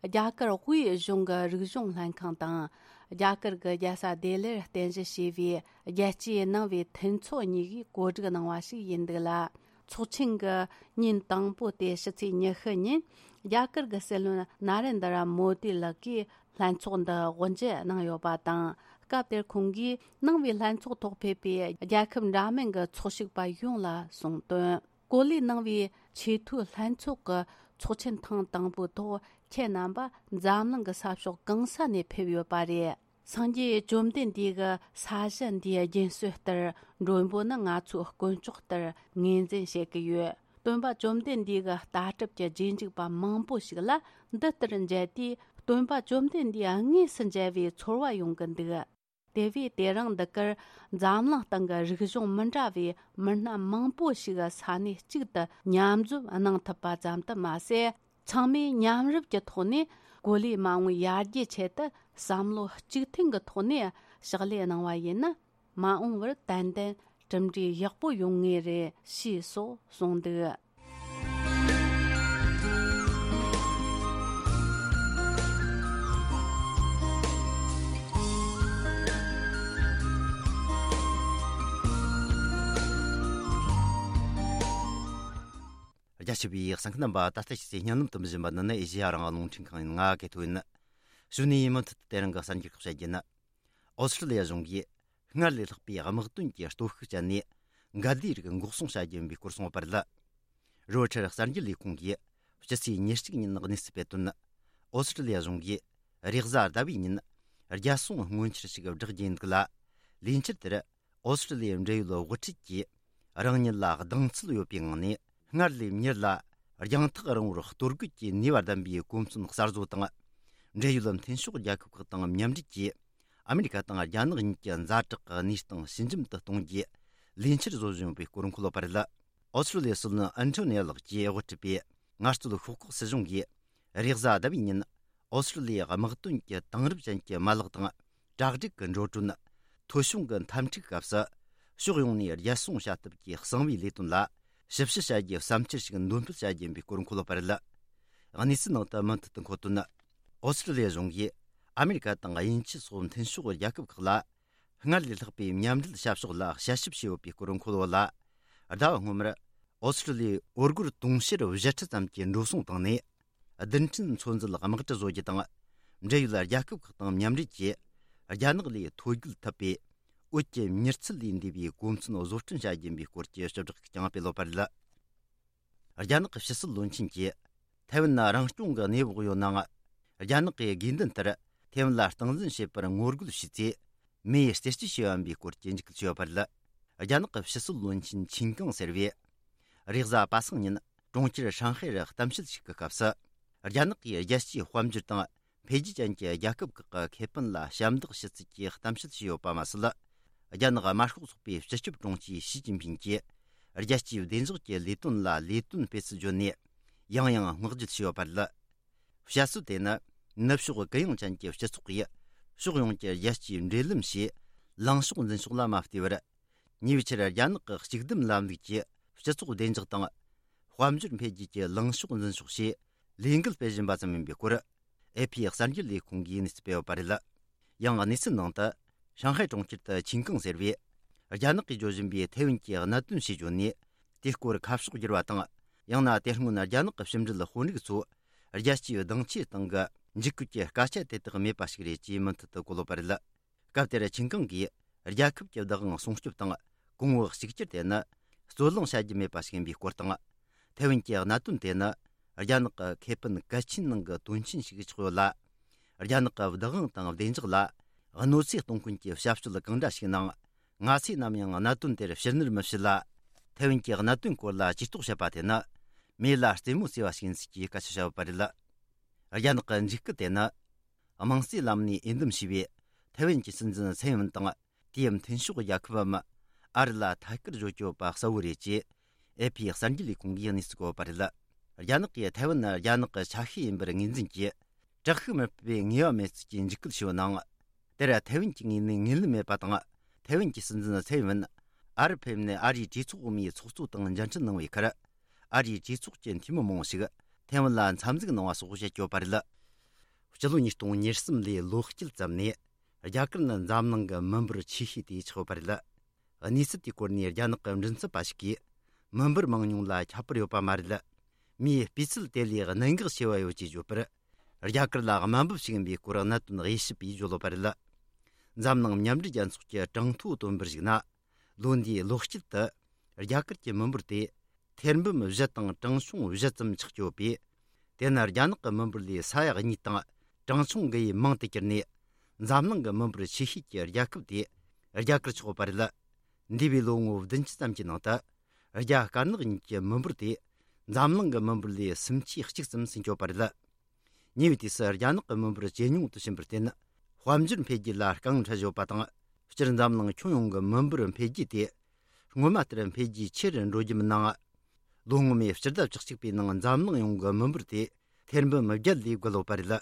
རྒྱ་གར་དབུས་གཞུང་གི་རིག་གཞུང་ལྷན་ཁང་དང་། རྒྱ་གར་གྱི་རྒྱལ་ས་ལྡི་ལིར་རྟེན་གཞི་བྱས་པའི་རྒྱལ་སྤྱིའི་ནང་པའི་མཐུན་ཚོགས་གཉིས་ཀྱིས་གོ་སྒྲིག་གནང་བ་ཞིག་ཡིན་འདུག་ལ། ཚོགས་ཆེན་གྱི་ཉིན་དང་པོ་སྟེ་ཕྱི་ཚེས་ཉི་ཤུ་ཉིན། རྒྱ་གར་གྱི་སྲིད་བློན་ན་རེན་དྲ་མོ་དི་ལགས་ཀྱིས་ལྷན་ཚོགས་འདི་དབུ་འབྱེད་གནང་ཡོད་པ་དང་། སྐབས་དེར་ཁོང་གིས་ནང་པའི་ལྷན་ཚོགས་ཐོག་ཕེབས་པའི་རྒྱལ་ཁབ་འདྲ་མིན་གྱི་ཚོགས་ཞུགས་པ་ཡོངས་ལ་གསུངས་དོན། གོ་ལའི་ནང་པའི་ཆེས་མཐོའི་ལྷན་ཚོགས་ཀྱི་ཚོགས་ཆེན་ཐེངས་དང་པོའི་ཐོག་ཁྱེད་རྣམ་པ་འཛམ་གླིང་གི་ས་ཕྱོགས་གང་ས་ནས་ཕེབས་ཡོད་པ་རེད། སངས་རྒྱས་བཅོམ་ལྡན་འདས་ཀྱི་ས་གཞི་འདིའི་རྒྱུན་སྲོལ་ལྟར་མགྲོན་པོ་ནི་ང་ཚོའི་དཀོན་མཆོག་ལྟར་ངོས་འཛིན་བྱེད་ཀྱི་ཡོད། སྟོན་པ་བཅོམ་ལྡན་འདས་ཀྱི་ལྟ་གྲུབ་ཀྱི་རྗེས་འཇུག་པ་མང་པོ་ཞིག་ལ་འདི་ལྟར་མཇལ་དུས། སྟོན་པ་བཅོམ་ལྡན་འདས་དངོས་སུ་མཇལ་བའི་ཚོར་བ་ཡོང་གི་འདུག་དེ་བས་དེ་རིང་འདི་གར་འཛམ་གླིང་སྟེང་གི་རིག་གཞུང་མི་འདྲ་བའི་མི་སྣ་མང་པོ་ཞིག་ས་གནས་གཅིག་ཏུ་མཉམ་འཛོམས་གནང་ཐུབ་པ་ཙམ་དུ་མ་ཟད། ཚང་མས་མཉམ་རུབ་ཀྱི་ཐོག་ནས་གོ་ལའི་མ་འོངས་ཡར་རྒྱས་ཆེད་དུ་བསམ་བློ་གཅིག་མཐུན་གྱི་ཐོག་ནས་ཕྱག་ལས་གནང་བ་ཡིན་ན། མ་འོངས་པར་ཏན་ཏན་གྲུབ་འབྲས་ཡག་པོ་ཡོང་ངེས་རེད། ཞེས་སོགས་གསུངས་འདུག་རྒྱ་ཆེ་བའི་གསན་མཁན་རྣམ་པ། ད་ལྟ་ཕྱི་ཚེས་བརྙན་ལམ་དུ་འཛིན་པ་འདི་ནི་ཨེ་ཤེ་ཡ་རང་དབང་རླུང་འཕྲིན་ཁང་ཡིན། ང་གི་ཐོ་ཡིན། གཞུག་ནས་མུ་མཐུད་དེ་རིང་གི་གསར་འགྱུར་ཁག་བཤད་རྒྱུ་ཡིན། ཨོ་སི་ཀྲི་ལི་ཡ་གཞུང་གིས་སྔར་ལས་ལྷག་པའི་དམག་དོན་གྱི་སྟོབས་ཤུགས་སྤྱད་ནས་འགལ་ཟླའི་རིགས་འགོག་སྲུང་བྱ་རྒྱུ་ཡིན་པའི་སྐོར་གསུངས་པ་རེད། རོའི་ཊར་གསར་འགྱུར་ལས་ཁུངས་ཀྱིས་སྤྱི་ཚེས་ཉེར་གཅིག་ཉིན་གནས་ཚུལ་སྤེལ་དོན། ཨོ་སི་ཀྲི་ལི་ཡ་གཞུང་གིས་རེས་གཟའ་ཟླ་བའི་ཉིན་རྒྱལ་སྲུང་སྔོན་འཆར་ཞིག་བསྒྲགས་རྒྱུ་ཡིན་འདུག་ལ། ལས་འཆར་དེར་ཨོ་སི་ཀྲི་ལི་ཡའི་འབྲེལ་ཡོད་དབུ་ཁྲིད་ཀྱིས་རང་ཉིད་ལ་གདེང་ཚོད་ཡོད་པའི་ངང་ནས། སྔར་ལས་མྱུར་ལ་རྒྱང་ཐག་རིང་བོར་གཏོར་རྒོལ་གྱི་ནུས་པ་ལྡན་པའི་གོ་མཚོན་གསར་བཟོ་དང་། འབྲེལ་ཡོད་མཐུན་ཕྱོགས་རྒྱལ་ཁབ་ཁག་དང་མཉམ་འབྲེལ་གྱིས་ཨ་མི་རི་ཀ་དང་རྒྱ་ནག་གཉིས་ཀྱི་ཛ་དྲག་གི་གནས་སྟངས་ཞི་འཇམ་དུ་གཏོང་རྒྱུའི་ལས་འཆར་བཟོ་བཞིན་ཡོད་པའི་སྐོར་འཁོད་ཡོད་པ་རེད། ཨོ་སི་ཀྲི་ལི་ཡའི་སྲིད་བློན་ཨན་ཐོ་ནི་ཡ་ལགས་ཀྱིས་དབུ་ཁྲིད་པའི་ངལ་རྩོལ་ཤོག་ཁག་སྲིད་གཞུང་གིས་རེས་གཟའ་ཟླ་བའི་ཉིན་ཨོ་སི་ཀྲི་ལི་ཡའི་དམག་དོན་གྱི་དེང་རབས་ཅན་གྱི་མ་ལག་དང་། གྲ་སྒྲིག་གི་འགྲོ་གྲོན། ཐོ་གཞུང་གི་འཐབ་འཁྲུག་སྐབས་སུ་ཕྱོགས་ཡོངས་ནས་རྒྱལ་སྲུང་བྱ་ཐབས་ཀྱི་གསང་བའི་ལས་དོན་ལ་ཞིབ་དཔྱད་བྱ་རྒྱུའི་བསམ་འཆར་ཞིག་འདོན་སྤེལ་བྱ་རྒྱུ་ཡིན་པའི་སྐོར་འཁོད་ཡོད་པ་རེད། གནས་ཚུལ་ནང་དུ་མུ་མཐུད་དུ་འཁོད་དོན། ཨོ་སི་ཀྲི་ལི་ཡ་གཞུང་གིས་ཨ་མི་རི་ཀ་དང་དབྱིན་ཇི་སོགས་མཐུན་ཕྱོགས་རྒྱལ་ཁབ་ཁག་ལ། སྔར་ལས་ལྷག་པའི་མཉམ་འབྲེལ་བྱ་ཕྱོགས་ལ་དཔྱད་ཞིབ་བྱས་ཡོད་པའི་སྐོར་འཁོད་ཡོད་ལ། ཟླ་བ་སྔོན་མར་ཨོ་སི་ཀྲུ་ལི་ཡའི་འོར་སྒོར་དུང་ཕྱུར་བཞི་ཁྲི་ཙམ་གྱི་འགྲོ་སོང་བཏང་ནས། བདུན་ཕྲན་ཚོད་འཛིན་དམག་གྲུ་བཟོ་རྒྱུ་དང་། འབྲེལ་ཡོད་རྒྱལ་ཁབ་ཁག་དང་མཉམ་འབྲེལ་གྱིས་རྒྱ་ནག་ལས་ཐོ་འགོད་ཐུབ་པའི་འོད་ཀྱི་མྱུར་ཚད་ལས་འདས་པའི་གོ་མཚོན་བཟོ་སྐྲུན་བྱ་རྒྱུ་ཡིན་པའི་སྐོར་གྱི་ཞིབ་བསྒྲགས་ཤིག་ཀྱང་སྤེལ་ཡོད་པ་རེད། རྒྱ་ནག་གི་ཕྱི་སྲིད་བློན་ཆེན་གྱིས། ཐའེ་ཝན་ནི་རང་སྐྱོང་གི་གནས་བབ་ཡོད་ནའང་། རྒྱ་ནག་གི་དགོས་འདུན་ལྟར་ཐའེ་ཝན་ལ་སྟངས་འཛིན་བྱེད་པར་ངོ་རྒོལ་བྱས་ཚེ། མེ་ཡིས་རྩད་གཅོད་བྱས་པ་ཡིན་པའི་སྐོར་གྱི་འཇིགས་སྐུལ་བྱས་ཡོད་པ་རེད། རྒྱ་ནག་གི་ཕྱི་སྲིད་བློན་ཆེན་ཆིན་ཀང་ཟེར་བས། རེས་གཟའ་པ་སངས་ཉིན་གྲོང་ཁྱེར་ཧྲང་ཧའེ་རུ་གཏམ་བཤད་ཞིག་གི་སྐབས་སུ། རྒྱ་ནག་གིས་རྒྱལ་སྤྱིའི་དཔལ་འབྱོར་དང་འཕེལ་རྒྱས་ཅན་གྱི་རྒྱལ་ཁབ་ཁག་གི་ཁེ་ཕན་ལ་ཞབས་འདེགས་ཞུ་ཚུལ་གྱི་གཏམ་བཤད་བྱས་ཡོད་པ་མ་ཟད། རྒྱ་ནག་དམར་ཤོག་ཚོགས་པའི་སྤྱི་ཁྱབ་དྲུང་ཆེ་ཞི་ཅིན་ཕིན་གྱིས་རྒྱལ་སྤྱིའི་བདེ་འཇགས་ཀྱི་ལས་དོན་ལ་ལས་དོན་སྤེལ་ཚུལ་བརྗོད་ནས། ཡང་ཡང་བསྔགས་བརྗོད་བྱས་ཡོད་པ་རེད། བཤད་སྲོལ་དེ་ནི། ནུབ་ཕྱོགས་གུ་ཡངས་ཅན་གྱི་སྤྱི་ཚོགས་ཀྱིས་ཕྱོགས་ཡོངས་ཀྱི་རྒྱལ་སྤྱིའི་འབྲེལ་ལམ་ཞེས་ལངས་ཕྱོགས་འཛིན་ཕྱོགས་ལ་མ་བལྟས་པར། ཉེ་བའི་ཆར་རྒྱ་ནག་གི་གཅིག་སྡུད་ལམ་ལུགས་ཀྱིས་སྤྱི་ཚོགས་བདེ་འཇགས་དང་། དཔལ་འབྱོར་འཕེལ་རྒྱས་ཀྱི་ལངས་ཕྱོགས་འཛིན་ཕྱོགས་ཞེས་ལས་འགུལ་སྤེལ་བཞིན་པ་ཙམ་ཡིན་པའི་སྐོར། ཨེ་ཕི་གསར་འགྱུར་ལས་ཁུངས་ཀྱིས་གནས་ཚུལ་སྤེལ་ཡོད་པ་རེད། ཡང་གནས་ཚུལ་ནང་དུ། ཧྲང་ཧའེ་གྲོང་ཁྱེར་དུ་ཆིན་ཀང་ཟེར་བས། རྒྱ་ནག་གིས་བརྗོད་བཞིན་པའི་ཐའེ་ཝན་གྱི་གནད་དོན་ཞེས་བརྗོད་ནས། དེའི་སྐོར་ཁ་ཕྱོགས་བསྒྱུར་བ་དང་། ཡང་ན་དེ་སྔོན་རྒྱ་ནག་གི་ཕྱི་འབྲེལ་དཔོན་རིགས་ཚོ། རྒྱལ་སྤྱིའི་གདེང་ཆའི་སྟེང་གི་འཇིགས་སྐུལ་གྱི་སྐད་ཆ་དེ་དག་མེད་པ་ཞིག་རེད་ཅེས་མུ་མཐུད་དུ་གོ་ལོག་པ་རེད། སྐབས་དེར་ཆིན་ཀང་གིས། རྒྱལ་ཁབ་ཀྱི་བདག་དབང་སྲུང་སྐྱོབ་དང་། གོང་བུ་གཅིག་གྱུར་དེ་ནི། རྩོད་གླེང་བྱ་རྒྱུ་མེད་པ་ཞིག་ཡིན་པའི་སྐོར་དང་། ཐའེ་ཝན་གྱི་གནད་དོན་དེ་ནི། རྒྱ་ནག་གི་ཁེ་ཕན་གལ་ཆེན་ནང་གི་དོན་ཆེན་ཞིག་ཆགས་ཡོད་ལ། རྒྱ་ནག་གི་བདག་དབང་དང་བདེ་འཇགས་ལ་གནོད་འཚེ་གཏོང་མཁན་གྱི་བྱ་སྤྱོད་གང་འདྲ་ཞིག་ནང་། ང་ཚོས་ནམ་ཡང་གནད་དོན་དེར་ཕྱིར་ནུར་མི་བྱེད་ལ། ཐའེ་ཝན་གྱི་གནད་དོན་སྐོར་ལ་ཇུས་གཏོགས་བྱེད་པ་དེ་ནི། མེ་ལ་རྩེད་མོ་རྩེ་བ་ཞིག་ཡིན་ཚུལ་གྱི་སྐད་ཆ་བཤད་ཡོད་པ་རེད། རྒྱ་ནག་གི་འཇིགས་སྐུལ་དེ་ནི། དམངས་གཙོའི་ལམ་ནས་འོས་འདེམས་བྱས་པའི་ཐའེ་ཝན་གྱི་སྲིད་འཛིན་ཚའེ་ཝན་དང་། དེའི་མཐུན་ཕྱོགས་རྒྱལ་ཁབ་བམ། ཨ་རི་ལ་ཐད་ཀར་བརྗོད་ཀྱི་ཡོད་པ་གསལ་བོ་རེད་ཅེས། ཨེ་ཕི་གསར་འགྱུར་ལས་ཁུངས་ཀྱིས་གནས་ཚུལ་བཀོད་པ་རེད། རྒྱ་ནག་གིས་ཐའེ་ཝན་ནི་རྒྱ་ནག་གི་ཆ་ཤས་ཡིན་པར་ངོས་འཛིན་གྱིས། དྲག་ཤུགས་མི་སྤེལ་བའི་ངེས་པ་མེད་ཚུལ་གྱི་འཇིགས་སྐུལ་ཞུས་པ་ནང་། དེར་ཐའེ་ཝན་གྱི་ངོས་ནས་ངོས་ལེན་མེད་པ་དང་། ཐའེ་ཝན་གྱི་སྲིད་འཛིན་ཚའེ་ཝན། ཨ་རི་ཕེབས་ནས་ཨ་རིའི་གྲོས་ཚོགས་འོག་མའི་ཚོགས་གཙོ་དང་མཇལ་འཕྲད་གནང་བའི་ཁར། ཨ་རིའི་གྲོས་ཚོགས་ཀྱི་འཐུས་མི་མང་པོ་ཞིག་ཐའེ་ཝན་ལ་འཚམས་གཟིགས་གནང་བ་སོགས་བྱེད་ཀྱི་ཡོད་པ་རེད། སྤྱི་ལོ་ཉིས་སྟོང་ཉེར་གསུམ་ལོའི་ལོ་དཀྱིལ་ཙམ་ནས། རྒྱ་གར་ནི་འཛམ་གླིང་གི་མི་འབོར་ཆེ་ཤོས་དེ་ཆགས་ཡོད་པ་རེད། གནས་ཚུལ་དེའི་སྐོར་ནས་རྒྱ་ནག་གི་མགྲིན་ཚབ་པ་ཞིག་གིས། མི་འབོར་མང་ཉུང་ལ་ཁྱད་པར་ཡོད་པ་མ་རེད། མིའི་སྤུས་ཚད་དེ་ལས་གནད་འགག་ཆེ་བ་ཡོད་ཅེས་བརྗོད་པར། རྒྱ་གར་ལ་དམའ་འབེབས་ཤིག་ཡིན་པའི་སྐོར་གནད་དོན་དབྱེ་ཞིབ་པས་བརྗོད་ཡོད་པ་རེད། འཛམ་གླིང་མཉམ་འབྲེལ་རྒྱལ་ཚོགས་ཀྱི་གྲངས་ཐོ་བཏོན་པར་གཞིགས་ན། ལོ་འདིའི་ལོ་དཀྱིལ་དུ། རྒྱ་གར་གྱི་མི་འབོར་དེ། ཐེར་འབུམ་བཞི་དང་གྲངས་ཆུང་བཞི་ཙམ་ཆགས་ཀྱི་ཡོད་པས། དེ་ནི་རྒྱ་ནག་གི་མི་འབོར་ལས་ས་ཡ་གཉིས་དང་གྲངས་ཆུང་དགུ་ཡིས་མང་དུ་གྱུར་ནས། འཛམ་གླིང་གི་མི་འབོར་ཆེ་ཤོས་ཀྱི་རྒྱལ་ཁབ་དེ་རྒྱ་གར་ཆགས་ཡོད་པ་རེད། འདས་པའི་ལོ་ངོ་བདུན་ཅུ་ཙམ་གྱི་ནང་དུ། རྒྱ་དཀར་ནག་གཉིས་ཀྱི་མི་འབོར་དེ་འཛམ་གླིང་གི་མི་འབོར་ལས་སུམ་ཆའི་གཅིག་ཙམ་ཟིན་ཡོད་པ་རེད། ཉེ་བའི་དུས་སུ་རྒྱ་ནག་གི་མི་འབོར་ཇེ་ཉུང་དུ་ཕྱིན་པར་བརྟེན། དཔལ་འབྱོར་འཕེལ་རྒྱས་ལ་རྐང་འཁྲི་བཞག་པ་དང་། སྤྱིར་འཛམ་གླིང་ཁྱོན་ཡོངས་ཀྱི་མི་འབོར་འཕེལ་རྒྱས་དེ། སྔོན་མ་ལྟར་འཕེལ་རྒྱས་ཆེ་རུ་འགྲོ་རྒྱུ་མིན་ནའང་། ལོ་སྔོན་མའི་སྤྱི་ཟླ་བཅུ་གཅིག་པའི་ནང་འཛམ་གླིང་ཡོངས་ཀྱི་མི་འབོར་དེ་ཐེར་འབུམ་བརྒྱད་ལས་བརྒལ་ཡོད་པ་རེད།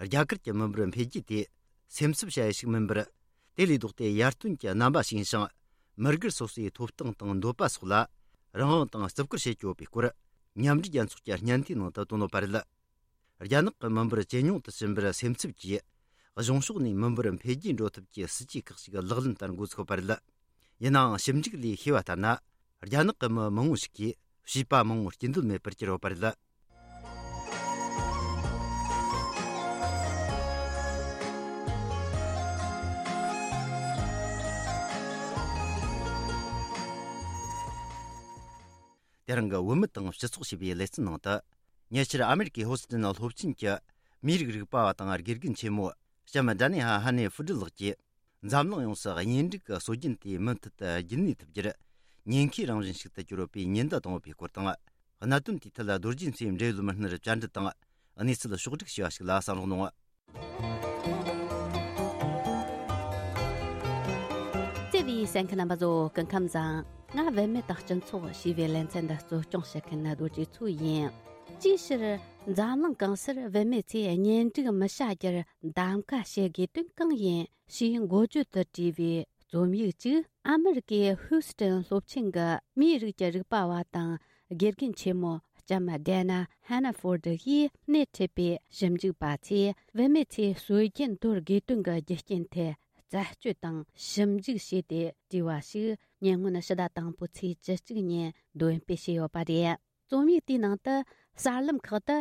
རྒྱ་གར་གྱི་མི་འབོར་འཕེལ་རྒྱས་དེ་སེམས་འཚབ་བྱ་ཡུལ་ཞིག་མིན་པར། དེ་ལས་ལྡོག་སྟེ་ཡར་ཐོན་གྱི་རྣམ་པ་ཞིག་ཡིན་ཞིང་། མི་སྒེར་སོ་སོའི་ཐོབ་ཐང་དང་འདོད་པ་སོགས་ལ་རང་དབང་དང་བརྩི་བཀུར་བྱེད་ཀྱི་ཡོད་པའི་སྐོར། མཉམ་འབྲེལ་རྒྱལ་ཚོགས་ཀྱི་སྙན་ཐོའི་ནང་དུ་བཏོན་ཡོད་པ་རེད། རྒྱ་ནག་གི་མི་འབོར་ཇེ་ཉུང་དུ་ཕྱིན་པར་སེམས་འཚབ་ཀྱིས། གཞུང་ཕྱོགས་ནས་མི་འབོར་འཕེལ་རྒྱས་འགྲོ་ཐབས་ཀྱི་སྲིད་ཇུས་ཁག་ཅིག་ལག་ལེན་བསྟར་འགོ་ཚུགས་པ་རེད། ཡིན་ནའང་ཞིབ་འཇུག་ལས་ཤེས་པ་ལྟར་ན། རྒྱ་ནག་གི་མི་མང་བོ་ཞིག་གིས་བྱིས་པ་མང་བོ་སྐྱེ་འདོད་མེད་པར་གྱུར་ཡོད་པ་རེད། དེ་རིང་གི་བུད་མེད་དང་སྤྱི་ཚོགས་ཞེས་པའི་ལེ་ཚན་ནང་དུ། ཉེ་ཆར་ཨ་མེ་རི་ཀའི་ཧོ་སི་ཏན་སློབ་ཆེན་གྱི་མིའི་རིགས་རིག་པ་བ་དང་དགེ་རྒན་ཆེན་མོ་ལྕམ་ཌ་ནི་ཧ་ཧ་ནེ་ཧྥུ་ཀྲི་ལགས་ཀྱིས། འཛམ་གླིང་ཡོངས་སུ་གཉེན་སྒྲིག་གི་སྲོལ་རྒྱུན་དེ་མུ་མཐུད་དུ་རྒྱུན་གནས་ཐུབ་རྒྱུར་ཉེན་ཁའི་རང་བཞིན་ཞིག་ཏུ་གྱུར་ཡོད་པའི་ཉེན་བརྡ་བཏང་ཡོད་པའི་སྐོར་དང་། གནད་དོན་དེའི་ཐད་རྡོ་རྗེ་མཚོའི་འབྲེལ་ཡོད་མི་སྣར་བཅར་འདྲི་དང་། གནས་ཚུལ་ཕྱོགས་བསྒྲིགས་བྱས་པ་ཞིག་ལ་གསན་རོགས་གནང་། བརྩེ་བའི་གསན་མཁན་རྣམ་པ་ཚོ་སྐུ་ཁམས་བཟང་། ང་བུད་མེད་དང་སྤྱི་ཚོགས་ཞེས་པའི་ལེ་ཚན་འདི་གཙོ་སྐྱོང་བྱེད་མཁན་རྡོ་རྗེ་མཚོ་ཡིན། ཅིའི་ཕྱིར་འཛམ་གླིང་གང་སར་བུད་མེད་ཚོས་གཉེན་སྒྲིག་མི་བྱ་རྒྱུར་གདམ་ག་བྱེད་དགོས་དོན་གང་ཡིན་ཞེས་འགོ་བརྗོད་དུ་བྲིས་པའི་རྩོམ་ཡིག་ཅིག་ཨ་མེ་རི་ཀའི་ཧུའུ་སི་ཏན་སློབ་ཆེན་གྱི་མིའི་རིགས་ཀྱི་རིག་པ་བ་དང་དགེ་རྒན་ཆེན་མོ་ལྕམ་ཌེ་ན་ཧན་ན་ཧྥོར་ཌི་ཡིས་སྣེ་ཁྲིད་པའི་ཞིབ་འཇུག་པ་ཚོས་བུད་མེད་ཚོས་སྲོལ་རྒྱུན་དོར་དགོས་དོན་གྱི་རྒྱུ་རྐྱེན་ཐད་ རྩད་གཅོད་དང་ཞིབ་འཇུག་བྱས་ཏེ་བྲིས་པ་ཞིག་ཉེ་སྔོན་ཕྱི་ཟླ་དང་པོའི་ཚེས་བཅུ་གཅིག་ཉིན་འདོན་སྤེལ་བྱས་ཡོད་པ་རེད། རྩོམ་ཡིག་དེའི་ནང་དུ་གསར་ལམ་ཁག་ཏུ་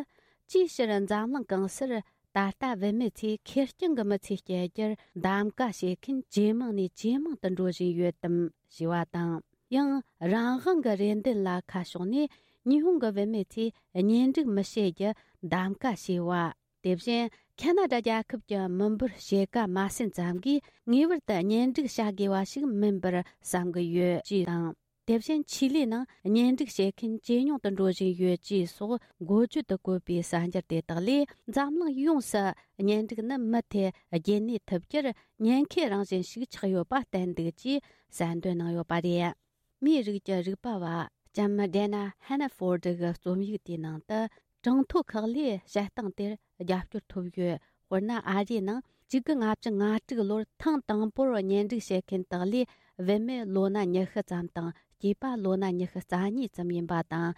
ཅིའི་ཕྱིར་འཛམ་གླིང་གང་སར་ད་ལྟ་བུད་མེད་ཚོས་ཁེར་རྐྱང་གི་མི་ཚེ་སྐྱེལ་རྒྱུར་གདམ་ག་བྱེད་མཁན་ཇེ་མང་ནས་ཇེ་མང་དུ་འགྲོ་བཞིན་ཡོད་དམ་ཞེས་པ་དང་། ཡང་རང་དབང་གི་རེ་འདུན་ལ་ཁ་ཕྱོགས་ནས་ཉི་ཧོང་གི་བུད་མེད་ཚོས་གཉེན་སྒྲིག་མི་བྱེད་རྒྱུ་གདམ་ག་བྱས་པ། དེ་བཞིན་ཁ་ན་ཌ་རྒྱལ་ཁབ་ཀྱི་མི་འབོར་ཕྱེད་ཀ་མ་ཟིན་ཙམ་གྱིས་ངེས་པར་དུ་གཉེན་སྒྲིག་བྱ་དགོས་པ་ཞིག་མིན་པར་བསམ་གྱི་ཡོད་ཅེས་དང་། དེ་བཞིན་ཆི་ལི་ནང་གཉེན་སྒྲིག་བྱེད་མཁན་ཇེ་ཉུང་དུ་འགྲོ་བཞིན་ཡོད་ཅེས་སོགས་འགོ་བརྗོད་དུ་བཀོད་པའི་གསར་འགྱུར་དེ་དག་ལས། འཛམ་གླིང་ཡོངས་སུ་གཉེན་སྒྲིག་ནི་མུ་མཐུད་རྒྱུན་གནས་ཐུབ་རྒྱུར་ཉེན་ཁའི་རང་བཞིན་ཞིག་ཆགས་ཡོད་པ་བསྟན་འདུག་ཅེས་གསལ་འདོན་གནང་ཡོད་པ་རེད། མིའི་རིགས་ཀྱི་རིག་པ་བ་ལྕམ་ཌེ་ན་ཧན་ན་ཧྥོར་ཌི་གི་རྩོམ་ཡིག་དེའི་ནང་དུ། གྲངས་ཐོ་ཁག་ལས་བྱེད་སྟངས་དེར་རྒྱབ་སྐྱོར་ཐོབ་ཡོད། དཔེར་ན། ཨ་རིའི་ནང་གཅིག་དགུ་ལྔ་བཅུ་ང་དྲུག་ལོར་ཐེངས་དང་པོར་གཉེན་སྒྲིག་བྱེད་མཁན་དག་ལས་བུད་མེད་ལོ་ན་ཉི་ཤུ་ཙམ་དང་སྐྱེས་པ་ལོ་ན་ཉི་ཤུ་རྩ་གཉིས་ཙམ་ཡིན་པ་དང་།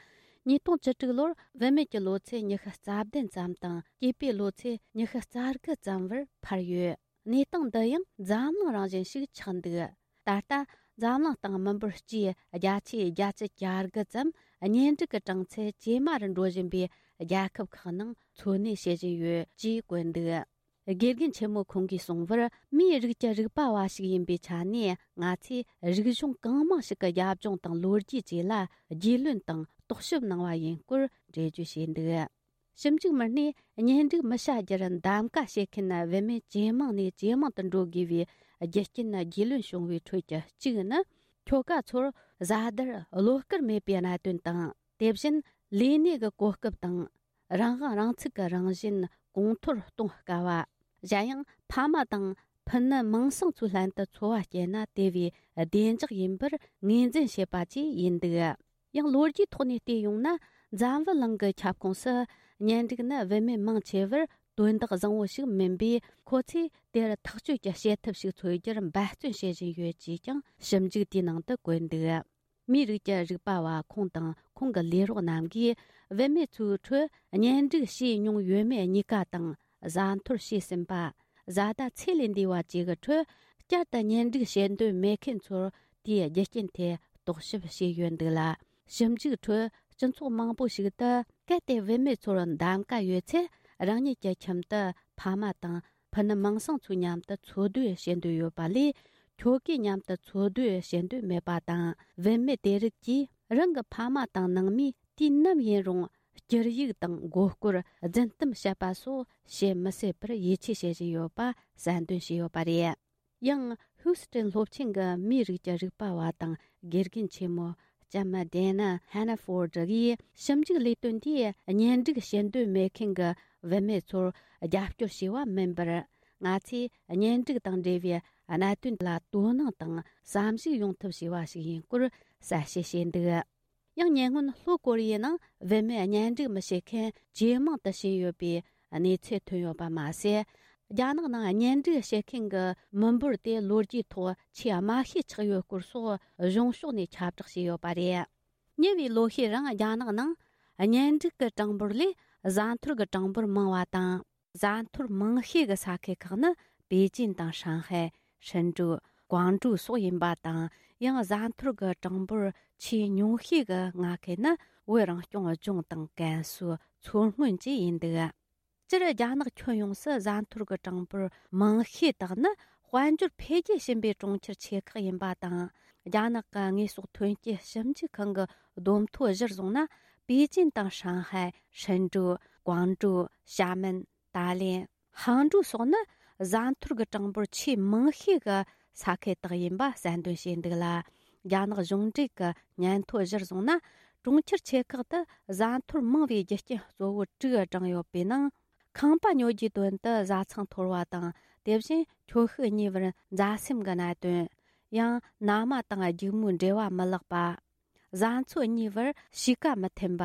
ཉིས་སྟོང་བཅུ་དྲུག་ལོར་བུད་མེད་ཀྱི་ལོ་ཚད་ཉི་ཤུ་རྩ་བདུན་ཙམ་དང་སྐྱེས་པའི་ལོ་ཚད་ཉི་ཤུ་རྩ་དགུ་ཙམ་བར་འཕར་ཡོད། གནས་སྟངས་འདི་ཡང་འཛམ་གླིང་རང་བཞིན་ཞིག་ཆགས་འདུག། ད་ལྟ་འཛམ་གླིང་སྟེང་མི་འབོར་སྤྱིའི་བརྒྱ་ཆའི་བརྒྱད་ཅུ་གྱ་དགུ་ཙམ་གཉེན་སྒྲིག་གི་གྲངས་ཚད་ཇེ་དམའ་རུ་འགྲོ་བཞིན་པའི་རྒྱལ་ཁབ་ཁག་ནང་འཚོ་གནས་བྱེད་བཞིན་ཡོད་ཅེས་བཀོད་འདུག། དགེ་རྒན་ཆེན་མོ་ཁོང་གིས་གསུངས་པར། མིའི་རིགས་ཀྱི་རིག་པ་བ་ཞིག་ཡིན་པའི་ཆ་ནས། ང་ཚོས་རིག་གཞུང་གང་མང་ཞིག་གི་རྒྱབ་ལྗོངས་དང་ལོ་རྒྱུས་བཅས་ལ་རྒྱུས་ལོན་དང་རྟོག་ཞིབ་གནང་བ་ཡིན་སྐོར་འགྲེལ་བརྗོད་བྱས་འདུག། ཞིབ་འཇུག་མི་སྣས་གཉེན་སྒྲིག་མི་བྱ་རྒྱུར་གདམ་ག་བྱེད་མཁན་བུད་མེད་ཇེ་མང་ནས་ཇེ་མང་དུ་འགྲོ་དགོས་པའི་རྒྱུ་རྐྱེན་རྒྱུས་ལོན་བྱུང་བའི་ཁྲོད་ཀྱི་གཅིག་ནི། ཁྱོ་ག་ཚོར་བཟའ་ཟླར་བློ་དཀར་མེད་པའི་གནད་དོན་དང་། དེ་བཞིན་ལས་གནས་ཀྱི་གོ་སྐབས་དང་། རང་དབང་རང་ཚུགས་ཀྱི་རང་བཞིན་གོང་མཐོར་གཏོང་དཀའ་བ། གཞན་ཡང་ཕ་མ་དང་ཕུ་ནུ་མིང་སྲིང་ཚོའི་ལྷན་དུ་འཚོ་བ་སྐྱེལ་ན་དེ་བས་བདེ་འཇགས་ཡིན་པར་ངོས་འཛིན་བྱེད་པ་བཅས་ཡིན་འདུག། ཡང་ལོ་རྒྱུས་ཐོག་ནས་བལྟས་ཡོང་ན། འཛམ་བུ་གླིང་གི་ཁྱབ་ཁོངས་སུ་གཉེན་སྒྲིག་ནི་བུད་མེད་མང་ཆེ་བར་དོན་དག་བཟང་བོ་ཞིག་མིན་པས། ཁོ་ཚོས་དེར་ཐག་གཅོད་ཀྱི་བྱེད་ཐབས་ཤིག་འཚོལ་རྒྱུར་འབད་བརྩོན་བྱེད་བཞིན་ཡོད་ཅེས་ཀྱང་ཞིབ་འཇུག་དེའི་ནང་དུ་བཀོད་འདུག། མིའི་རིགས་ཀྱི་རིག་པ་བ་ཁོང་དང་ཁོང་གི་ལས་རོགས་རྣམས་ཀྱིས། བུད་མེད་ཚོའི་ཁྲོད་གཉེན་སྒྲིག་བྱས་མྱོང་ཡོད་མེད་གཉིས་ཀ་དང་། བཟའ་འཐོར་བྱས་ཟིན་པ། བཟའ་ཟླ་ཚེ་ལས་འདས་པ་བཅས་ཀྱི་ཁྲོད། བསྐྱར་དུ་གཉེན་སྒྲིག་བྱེད་འདོད་མེད་མཁན་ཚོར་དེའི་རྒྱུ་རྐྱེན་ཐད་རྟོག་ཞིབ་བྱས་ཡོད་འདུག་ལ། ཞིབ་འཇུག་ཁྲོད་སྤྱི་ཚོགས་མང་པོ་ཞིག་ཏུ། གལ་ཏེ་བུད་མེད་ཚོར་གདམ་ག་ཡོད་ཚེ། རང་ཉིད་ཀྱི་ཁྱིམ་དུ་ཕ་མ་དང་ཕུ་ནུ་མིང་སྲིང་ཚོའི་མཉམ་དུ་འཚོ་སྡོད་བྱེད་འདོད་ཡོད་པ་ལས། ཁྱོ་གའི་མཉམ་དུ་འཚོ་སྡོད་བྱེད་འདོད་མེད་པ་དང་། བུད་མེད་དེ་རིགས་ཀྱིས་རང་གི་ཕ་མ་དང་ནང་མིས་དུས་ནམ་ཡིན་རུང་། སྐྱུར་ཡིག་དང་མགོ་སྐོར། རྫུན་གཏམ་བཤད་པ་སོགས་བྱེད་མི་སྲིད་པར་ཡིད་ཆེས་བྱེད་བཞིན་ཡོད་པ་གསལ་འདོན་བྱས་ཡོད་པ་རེད། ཡང་ཧུའུ་སི་ཀྲེན་སློབ་ཆེན་གྱི་མིའི་རིགས་ཀྱི་རིག་པ་བ་དང་དགེ་རྒན་ཆེན་མོ་ལྕམ་ཌེ་ན་ཧན་ན་ཧྥོར་ཌི་ཡིས། ཞིབ་འཇུག་ལས་དོན་དེས་གཉེན་སྒྲིག་བྱེད་འདོད་མེད་མཁན་གྱི་བུད་མེད་ཚོར་རྒྱབ་སྐྱོར་བྱས་པ་མིན་པར། ང་ཚོས་གཉེན་སྒྲིག་དང་འབྲེལ་བའི་གནད་དོན་ལ་དོ་སྣང་དང་བསམ་གཞིགས་ཡོང་ཐབས་བྱས་པ་ཞིག་ཡིན་སྐོར་གསལ་བཤད་བྱས་འདུག། ཡང་ཉེ་སྔོན་ལྷོ་ཀོ་རི་ཡའི་ནང་བུད་མེད་གཉེན་སྒྲིག་མི་བྱེད་མཁན་ཇེ་མང་དུ་ཕྱིན་ཡོད་པའི་གནས་ཚུལ་ཐོན་ཡོད་པ་མ་ཟད། རྒྱ་ནག་ནང་གཉེན་སྒྲིག་བྱེད་མཁན་གྱི་མི་འབོར་དེ་ལོ་རྒྱུས་ཐོག་ཆེས་དམའ་ཤོས་ཆགས་ཡོད་སྐོར་སོགས་གཞུང་ཕྱོགས་ནས་ཁྱབ་བསྒྲགས་བྱས་ཡོད་པ་རེད། ཉེ་བའི་ལོ་ཤས་རིང་རྒྱ་ནག་ནང་གཉེན་སྒྲིག་གི་གྲངས་འབོར་ལས་བཟའ་འཐོར་གྱི་གྲངས་འབོར་མང་བ་དང་། བཟའ་འཐོར་མང་ཤོས་ཀྱི་ས་ཁུལ་ཁག་ནི་པེ་ཅིན་དང་ཧྲང་ཧའེ། ཧྲིན་ཀྲུའུ། ཀོང་ཀྲོའུ་སོགས་ཡིན་པ་དང་། ཡང་བཟའ་འཐོར་གྱི་གྲངས་འབོར་ཆེས་ཉུང་ཤོས་ཀྱི་མངའ་ཁུལ་ནི་བོད་རང་སྐྱོང་ལྗོངས་དང་ཀན་སུའུ། མཚོ་སྔོན་བཅས་ཡིན་འདུག། སྤྱིར་རྒྱ་ནག་ཁྱོན་ཡོངས་སུ་བཟའ་འཐོར་གྱི་གྲངས་འབོར་མང་ཤོས་དག་ནི་དཔལ་འབྱོར་འཕེལ་རྒྱས་ཕྱིན་པའི་གྲོང་ཁྱེར་ཆེ་ཁག་ཡིན་པ་དང་། རྒྱ་ནག་གི་དངོས་ཟོག་ཐོན་སྐྱེད་ཞིབ་འཇུག་ཁང་གི་བསྡོམས་ཐོ་གཞིར་བཟུང་ན། པེ་ཅིན་དང་ཧྲང་ཧའེ། ཧྲིན་ཀྲུའུ། ཀོང་ཀྲོའུ། ཞྭ་མེན། ཏཱ་ལེན། ཧང་ཀྲོའུ་སོགས་ནི་བཟའ་འཐོར་གྱི་གྲངས་འབོར་ཆེས་མང་ཤོས་ཀྱི་ས་ཁུལ་དག་ཡིན་པ་གསལ་འདོན་བྱས་འདུག་ལ། རྒྱ་ནག་གཞུང་འབྲེལ་གྱི་སྙན་ཐོ་གཞིར་བཟུང་ན། གྲོང་ཁྱེར་ཆེ་ཁག་ཏུ་བཟའ་འཐོར་མང་བའི་རྒྱུ་རྐྱེན་གཙོ་བོ་དྲུག་བགྲངས་ཡོད་པའི་ནང་། ཁང་པ་ཉོ་རྒྱུའི་དོན་དུ་བཟའ་ཚང་འཐོར་བ་དང་། དེ་བཞིན་ཁྱོ་ཤུག་གཉིས་བར་མཛའ་སེམས་ཀྱི་གནད་དོན། ཡང་མནའ་མ་དང་སྒྱུག་མོའི་འབྲེལ་བ་མི་ལེགས་པ། བཟའ་ཚོ་གཉིས་བར་གཤིས་ཀ་མི་མཐུན་པ།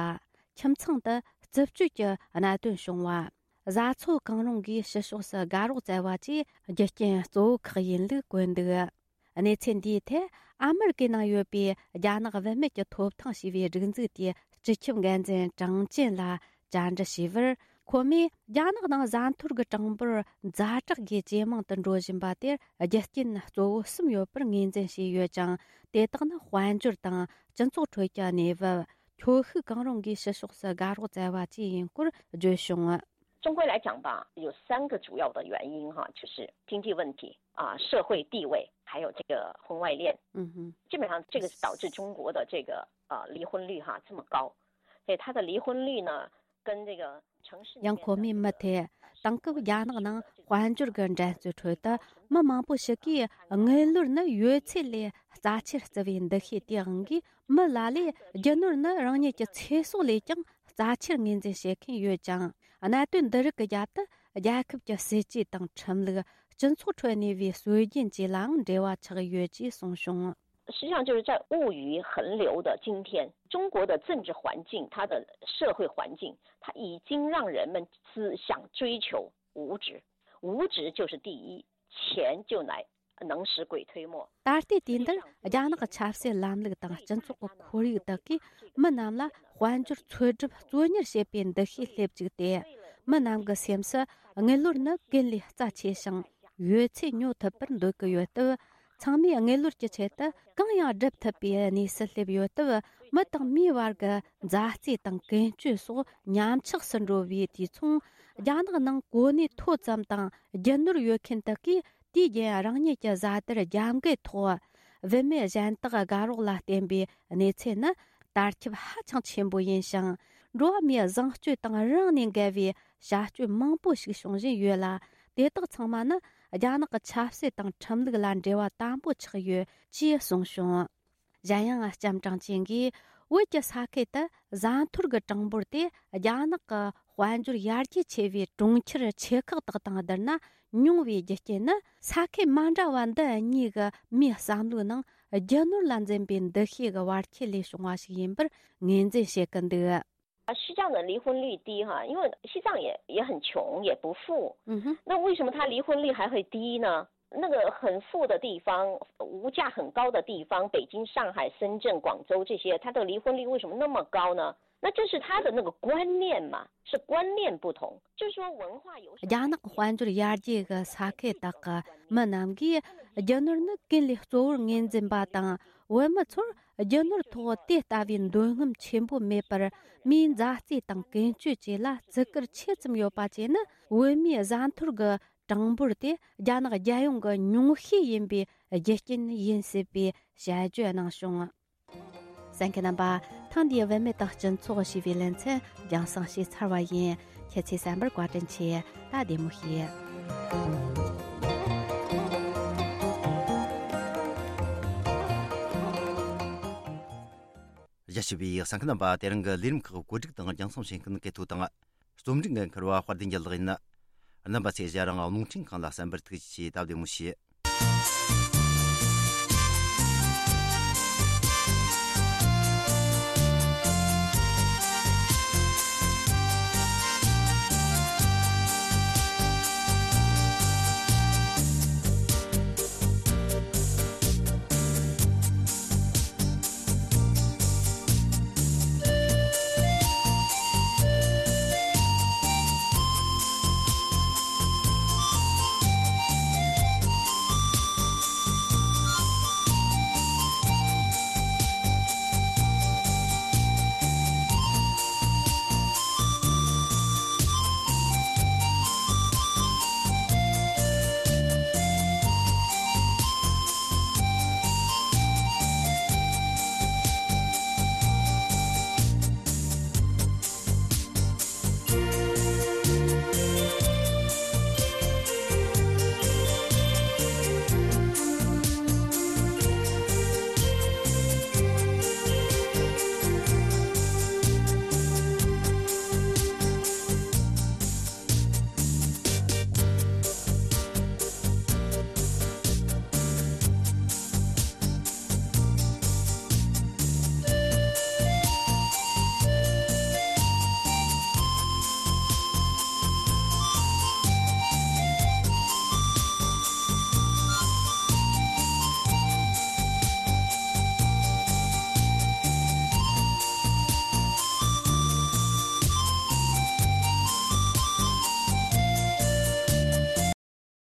ཁྱིམ་ཚང་དུ་རྩུབ་སྤྱོད་ཀྱི་གནད་དོན་བྱུང་བ། བཟའ་ཚོ་གང་རུང་གིས་ཕྱི་ཕྱོགས་སུ་དགའ་རོགས་བཙལ་བ་བཅས་རྒྱུ་རྐྱེན་གཙོ་བོ་ཁག་ཡིན་ལུགས་བཀོད་འདུག། གནས་ཚུལ་འདིའི་ཐད་ཨ་མེ་རི་ཀའི་ནང་ཡོད་པའི་རྒྱ་ནག་བུད་མེད་ཀྱི་ཐོབ་ཐང་ཞེས་པའི་སྒྲིག་འཛུགས་དེའི་སྤྱི་ཁྱབ་འགན་འཛིན་ཀྲང་ཅན་ལ་བཅར་འདྲི་བྱས་པར། ཁོ་མོས་རྒྱ་ནག་ནང་བཟའ་འཐོར་གྱི་གྲངས་འབོར་ཛ་དྲག་གིས་ཇེ་མང་དུ་འགྲོ་བཞིན་པ་དེར་རྒྱུ་རྐྱེན་གཙོ་བོ་གསུམ་ཡོད་པར་ངོས་འཛིན་བྱས་ཡོད་ཅིང་། དེ་དག་ནི་དཔལ་འབྱོར་དང་སྤྱི་ཚོགས་ཁྲོད་ཀྱི་གནས་བབ། ཁྱོ་ཤུག་གང་རུང་གིས་ཕྱི་ཕྱོགས་སུ་དགའ་རོགས་བཙལ་བ་བཅས་ཡིན་སྐོར་བརྗོད་བྱུང་། 中国来讲吧，有三个主要的原因哈，就是经济问题啊、社会地位，还有这个婚外恋。嗯哼，基本上这个是导致中国的这个呃离婚率哈这么高。所以它的离婚率呢，跟这个城市里面的 ཡང་ཁོ་མོས་མུ་མཐུད། དེང་སྐབས་རྒྱ་ནག་ནང་དཔལ་འབྱོར་གྱི་འགྲན་རྩོད་ཁྲོད་དུ་མི་མང་པོ་ཞིག་གིས་དངུལ་ལོར་ནི་ཡོད་ཚད་ལས་རྩ་ཆེར་བརྩི་བའི་འདུ་ཤེས་དེའང་གིས། མི་ལ་ལས་རྒྱུ་ནོར་ནི་རང་ཉིད་ཀྱི་ཚེ་སྲོག་ལས་ཀྱང་རྩ་ཆེར་ངོས་འཛིན་བྱེད་མཁན་ཡོད་ཅིང་། གནད་དོན་འདི་རིགས་ཀྱི་རྒྱབ་ཏུ་རྒྱལ་ཁབ་ཀྱི་སྲིད་ཇུས་དང་ཁྲིམས་ལུགས། སྤྱི་ཚོགས་ཁྲོད་གནས་པའི་སྲོལ་རྒྱུན་བཅས་ལའང་འབྲེལ་བ་ཆགས་ཡོད་ཅེས་གསུངས་བྱུང་། 实际上就是在物欲横流的今天，中国的政治环境，它的社会环境，它已经让人们思想追求物质，物质就是第一，钱就来能使鬼推磨。 ད་ལྟའི་དུས་འདིར་རྒྱ་ནག་གི་ཆབ་སྲིད་ལམ་ལུགས་དང་སྤྱི་ཚོགས་ཀྱི་ཁོར་ཡུག་དག་གིས་མི་རྣམས་ལ་དཔལ་འབྱོར་འཚོལ་སྒྲུབ་གཙོ་གཉེར་བྱེད་པའི་འདུ་ཤེས་སླེབས་བཅུག་སྟེ། མི་རྣམས་ཀྱི་སེམས་སུ་དངུལ་ལོར་ནི་ཀུན་ལས་རྩ་ཆེ་ཞིང་ཡོད་ཚད་ཉོ་ཐུབ་པར་འདོད་ཀྱི་ཡོད་སྟབས། ཚང་མས་དངུལ་ལོར་གྱི་ཆེད་དུ་གང་ཡང་སྒྲུབ་ཐུབ་པའི་གནས་སུ་སླེབས་ཡོད་སྟབས། མི་དང་མིའི་བར་གྱི་མཛའ་བརྩེ་དང་ཀུན་སྤྱོད་སོགས་ཉམས་ཆག་སུ་འགྲོ་བའི་དུས་མཚུངས། རྒྱ་ནག་ནང་གོ་གནས་མཐོ་ཙམ་དང་རྒྱུ་ནོར་ཡོད་མཁན་དག་གིས། དུས་རྒྱུན་རང་ཉིད་ཀྱི་བཟའ་དར་རྒྱབ་འགལ་ཐོག་བུད་མེད་གཞན་དག་དགའ་རོགས་ལ་བརྟེན་པའི་གནས་ཚུལ་ནི་དར་ཁྱབ་ཧ་ཅང་ཆེན་པོ་ཡིན་ཞིང་། འགྲོ་བ་མིའི་བཟང་སྤྱོད་དང་རང་ནས་འགལ་བའི་བྱ་སྤྱོད་མང་པོ་ཞིག་བྱུང་བཞིན་ཡོད་ལ། དེ་དག་ཚང་མ་ནི་རྒྱ་ནག་གི་ཆབ་སྲིད་དང་ཁྲིམས་ལུགས་ལ་འབྲེལ་བ་དམ་པོ་ཆགས་ཡོད་ཅེས་གསུངས་བྱུང་། གཞན་ཡང་། ལྕམ་ཀྲང་ཅིན་གྱིས་བོད་ཀྱི་ས་ཁུལ་དུ་བཟའ་འཐོར་གྱི་གྲངས་འབོར་དེ་རྒྱ་ནག་གི་དཔལ་འབྱོར་ཡར་རྒྱས་ཆེ་བའི་གྲོང་ཁྱེར་ཆེ་ཁག་དག་དང་བསྡུར་ན་ཉུང་བའི་རྒྱུ་རྐྱེན་ནི། ས་ཁུལ་མ་འདྲ་བ་འདི་གཉིས་ཀྱི་མིའི་བསམ་བློའི་ནང་རྒྱུ་ནོར་ལ་འཛིན་པའི་འདུ་ཤེས་ཀྱི་བར་ཁྱད་ལས་བྱུང་བ་ཞིག་ཡིན་པར་ངོས་འཛིན་བྱེད་ཀྱི་འདུག། 啊，西藏的离婚率低哈，因为西藏也也很穷，也不富。嗯哼，那为什么他离婚率还会低呢？那个很富的地方，物价很高的地方，北京、上海、深圳、广州这些，它的离婚率为什么那么高呢？那就是他的那个观念嘛，是观念不同，就是说文化有什么。 རྒྱ་ནག་དཔལ་འབྱོར་ཡར་རྒྱས་ཀྱི་ས་ཁུལ་དག་གི་མི་རྣམས་ཀྱིས་རྒྱུ་ནོར་ནི་ཀུན་ལས་གཙོ་བོར་ངོས་འཛིན་པ་དང་། བོད་མི་ཚོར་རྒྱུ་ནོར་ཐོག་དེ་ལྟ་བུའི་འདོད་རྔམ་ཆེན་པོ་མེད་པར། མིའི་མཛའ་བརྩེ་དང་ཀུན་སྤྱོད་བཅས་ལ་བརྩི་བཀུར་ཆེ་ཙམ་ཡོད་པ་བཅས་ནི། བོད་མིའི་བཟའ་འཐོར་གྱི་གྲངས་འབོར་དེ་རྒྱ་ནག་རྒྱལ་ཡོངས་ཀྱི་ཉུང་ཤས་ཡིན་པའི་རྒྱུ་རྐྱེན་ཡིན་སྲིད་པའི་དཔྱད་བརྗོད་གནང་བྱུང་། གསན་མཁན་རྣམ་པ། ཐེངས་འདིའི་བུད་མེད་དང་སྤྱི་ཚོགས་ཞེས་པའི་ལེ་ཚན་རྒྱང་སྲིང་བྱས་ཚར་བ་ཡིན། ཁྱེད་ཚོས་གསན་པར་བཀའ་དྲིན་ཆེ། ད་བདེ་མོ་བྱོས། རྒྱ་ཆེ་བའི་གསན་མཁན་རྣམ་པ། དེ་རིང་གི་ལས་རིམ་ཁག་བཀོད་སྒྲིག་དང་རྒྱང་སྲིང་བྱེད་མཁན་གལ་ཐོ་དང་། རྩོམ་སྒྲིག་འགན་འཁུར་བ་དཔལ་ལྡན་རྒྱལ་ལགས་ཡིན། རྣམ་པ་ཚོས་ཞལ་རང་རླུང་འཕྲིན་ཁང་ལ་གསན་པར་ཐུགས་རྗེ་ཆེ། ད་བདེ་མོ་བྱོས།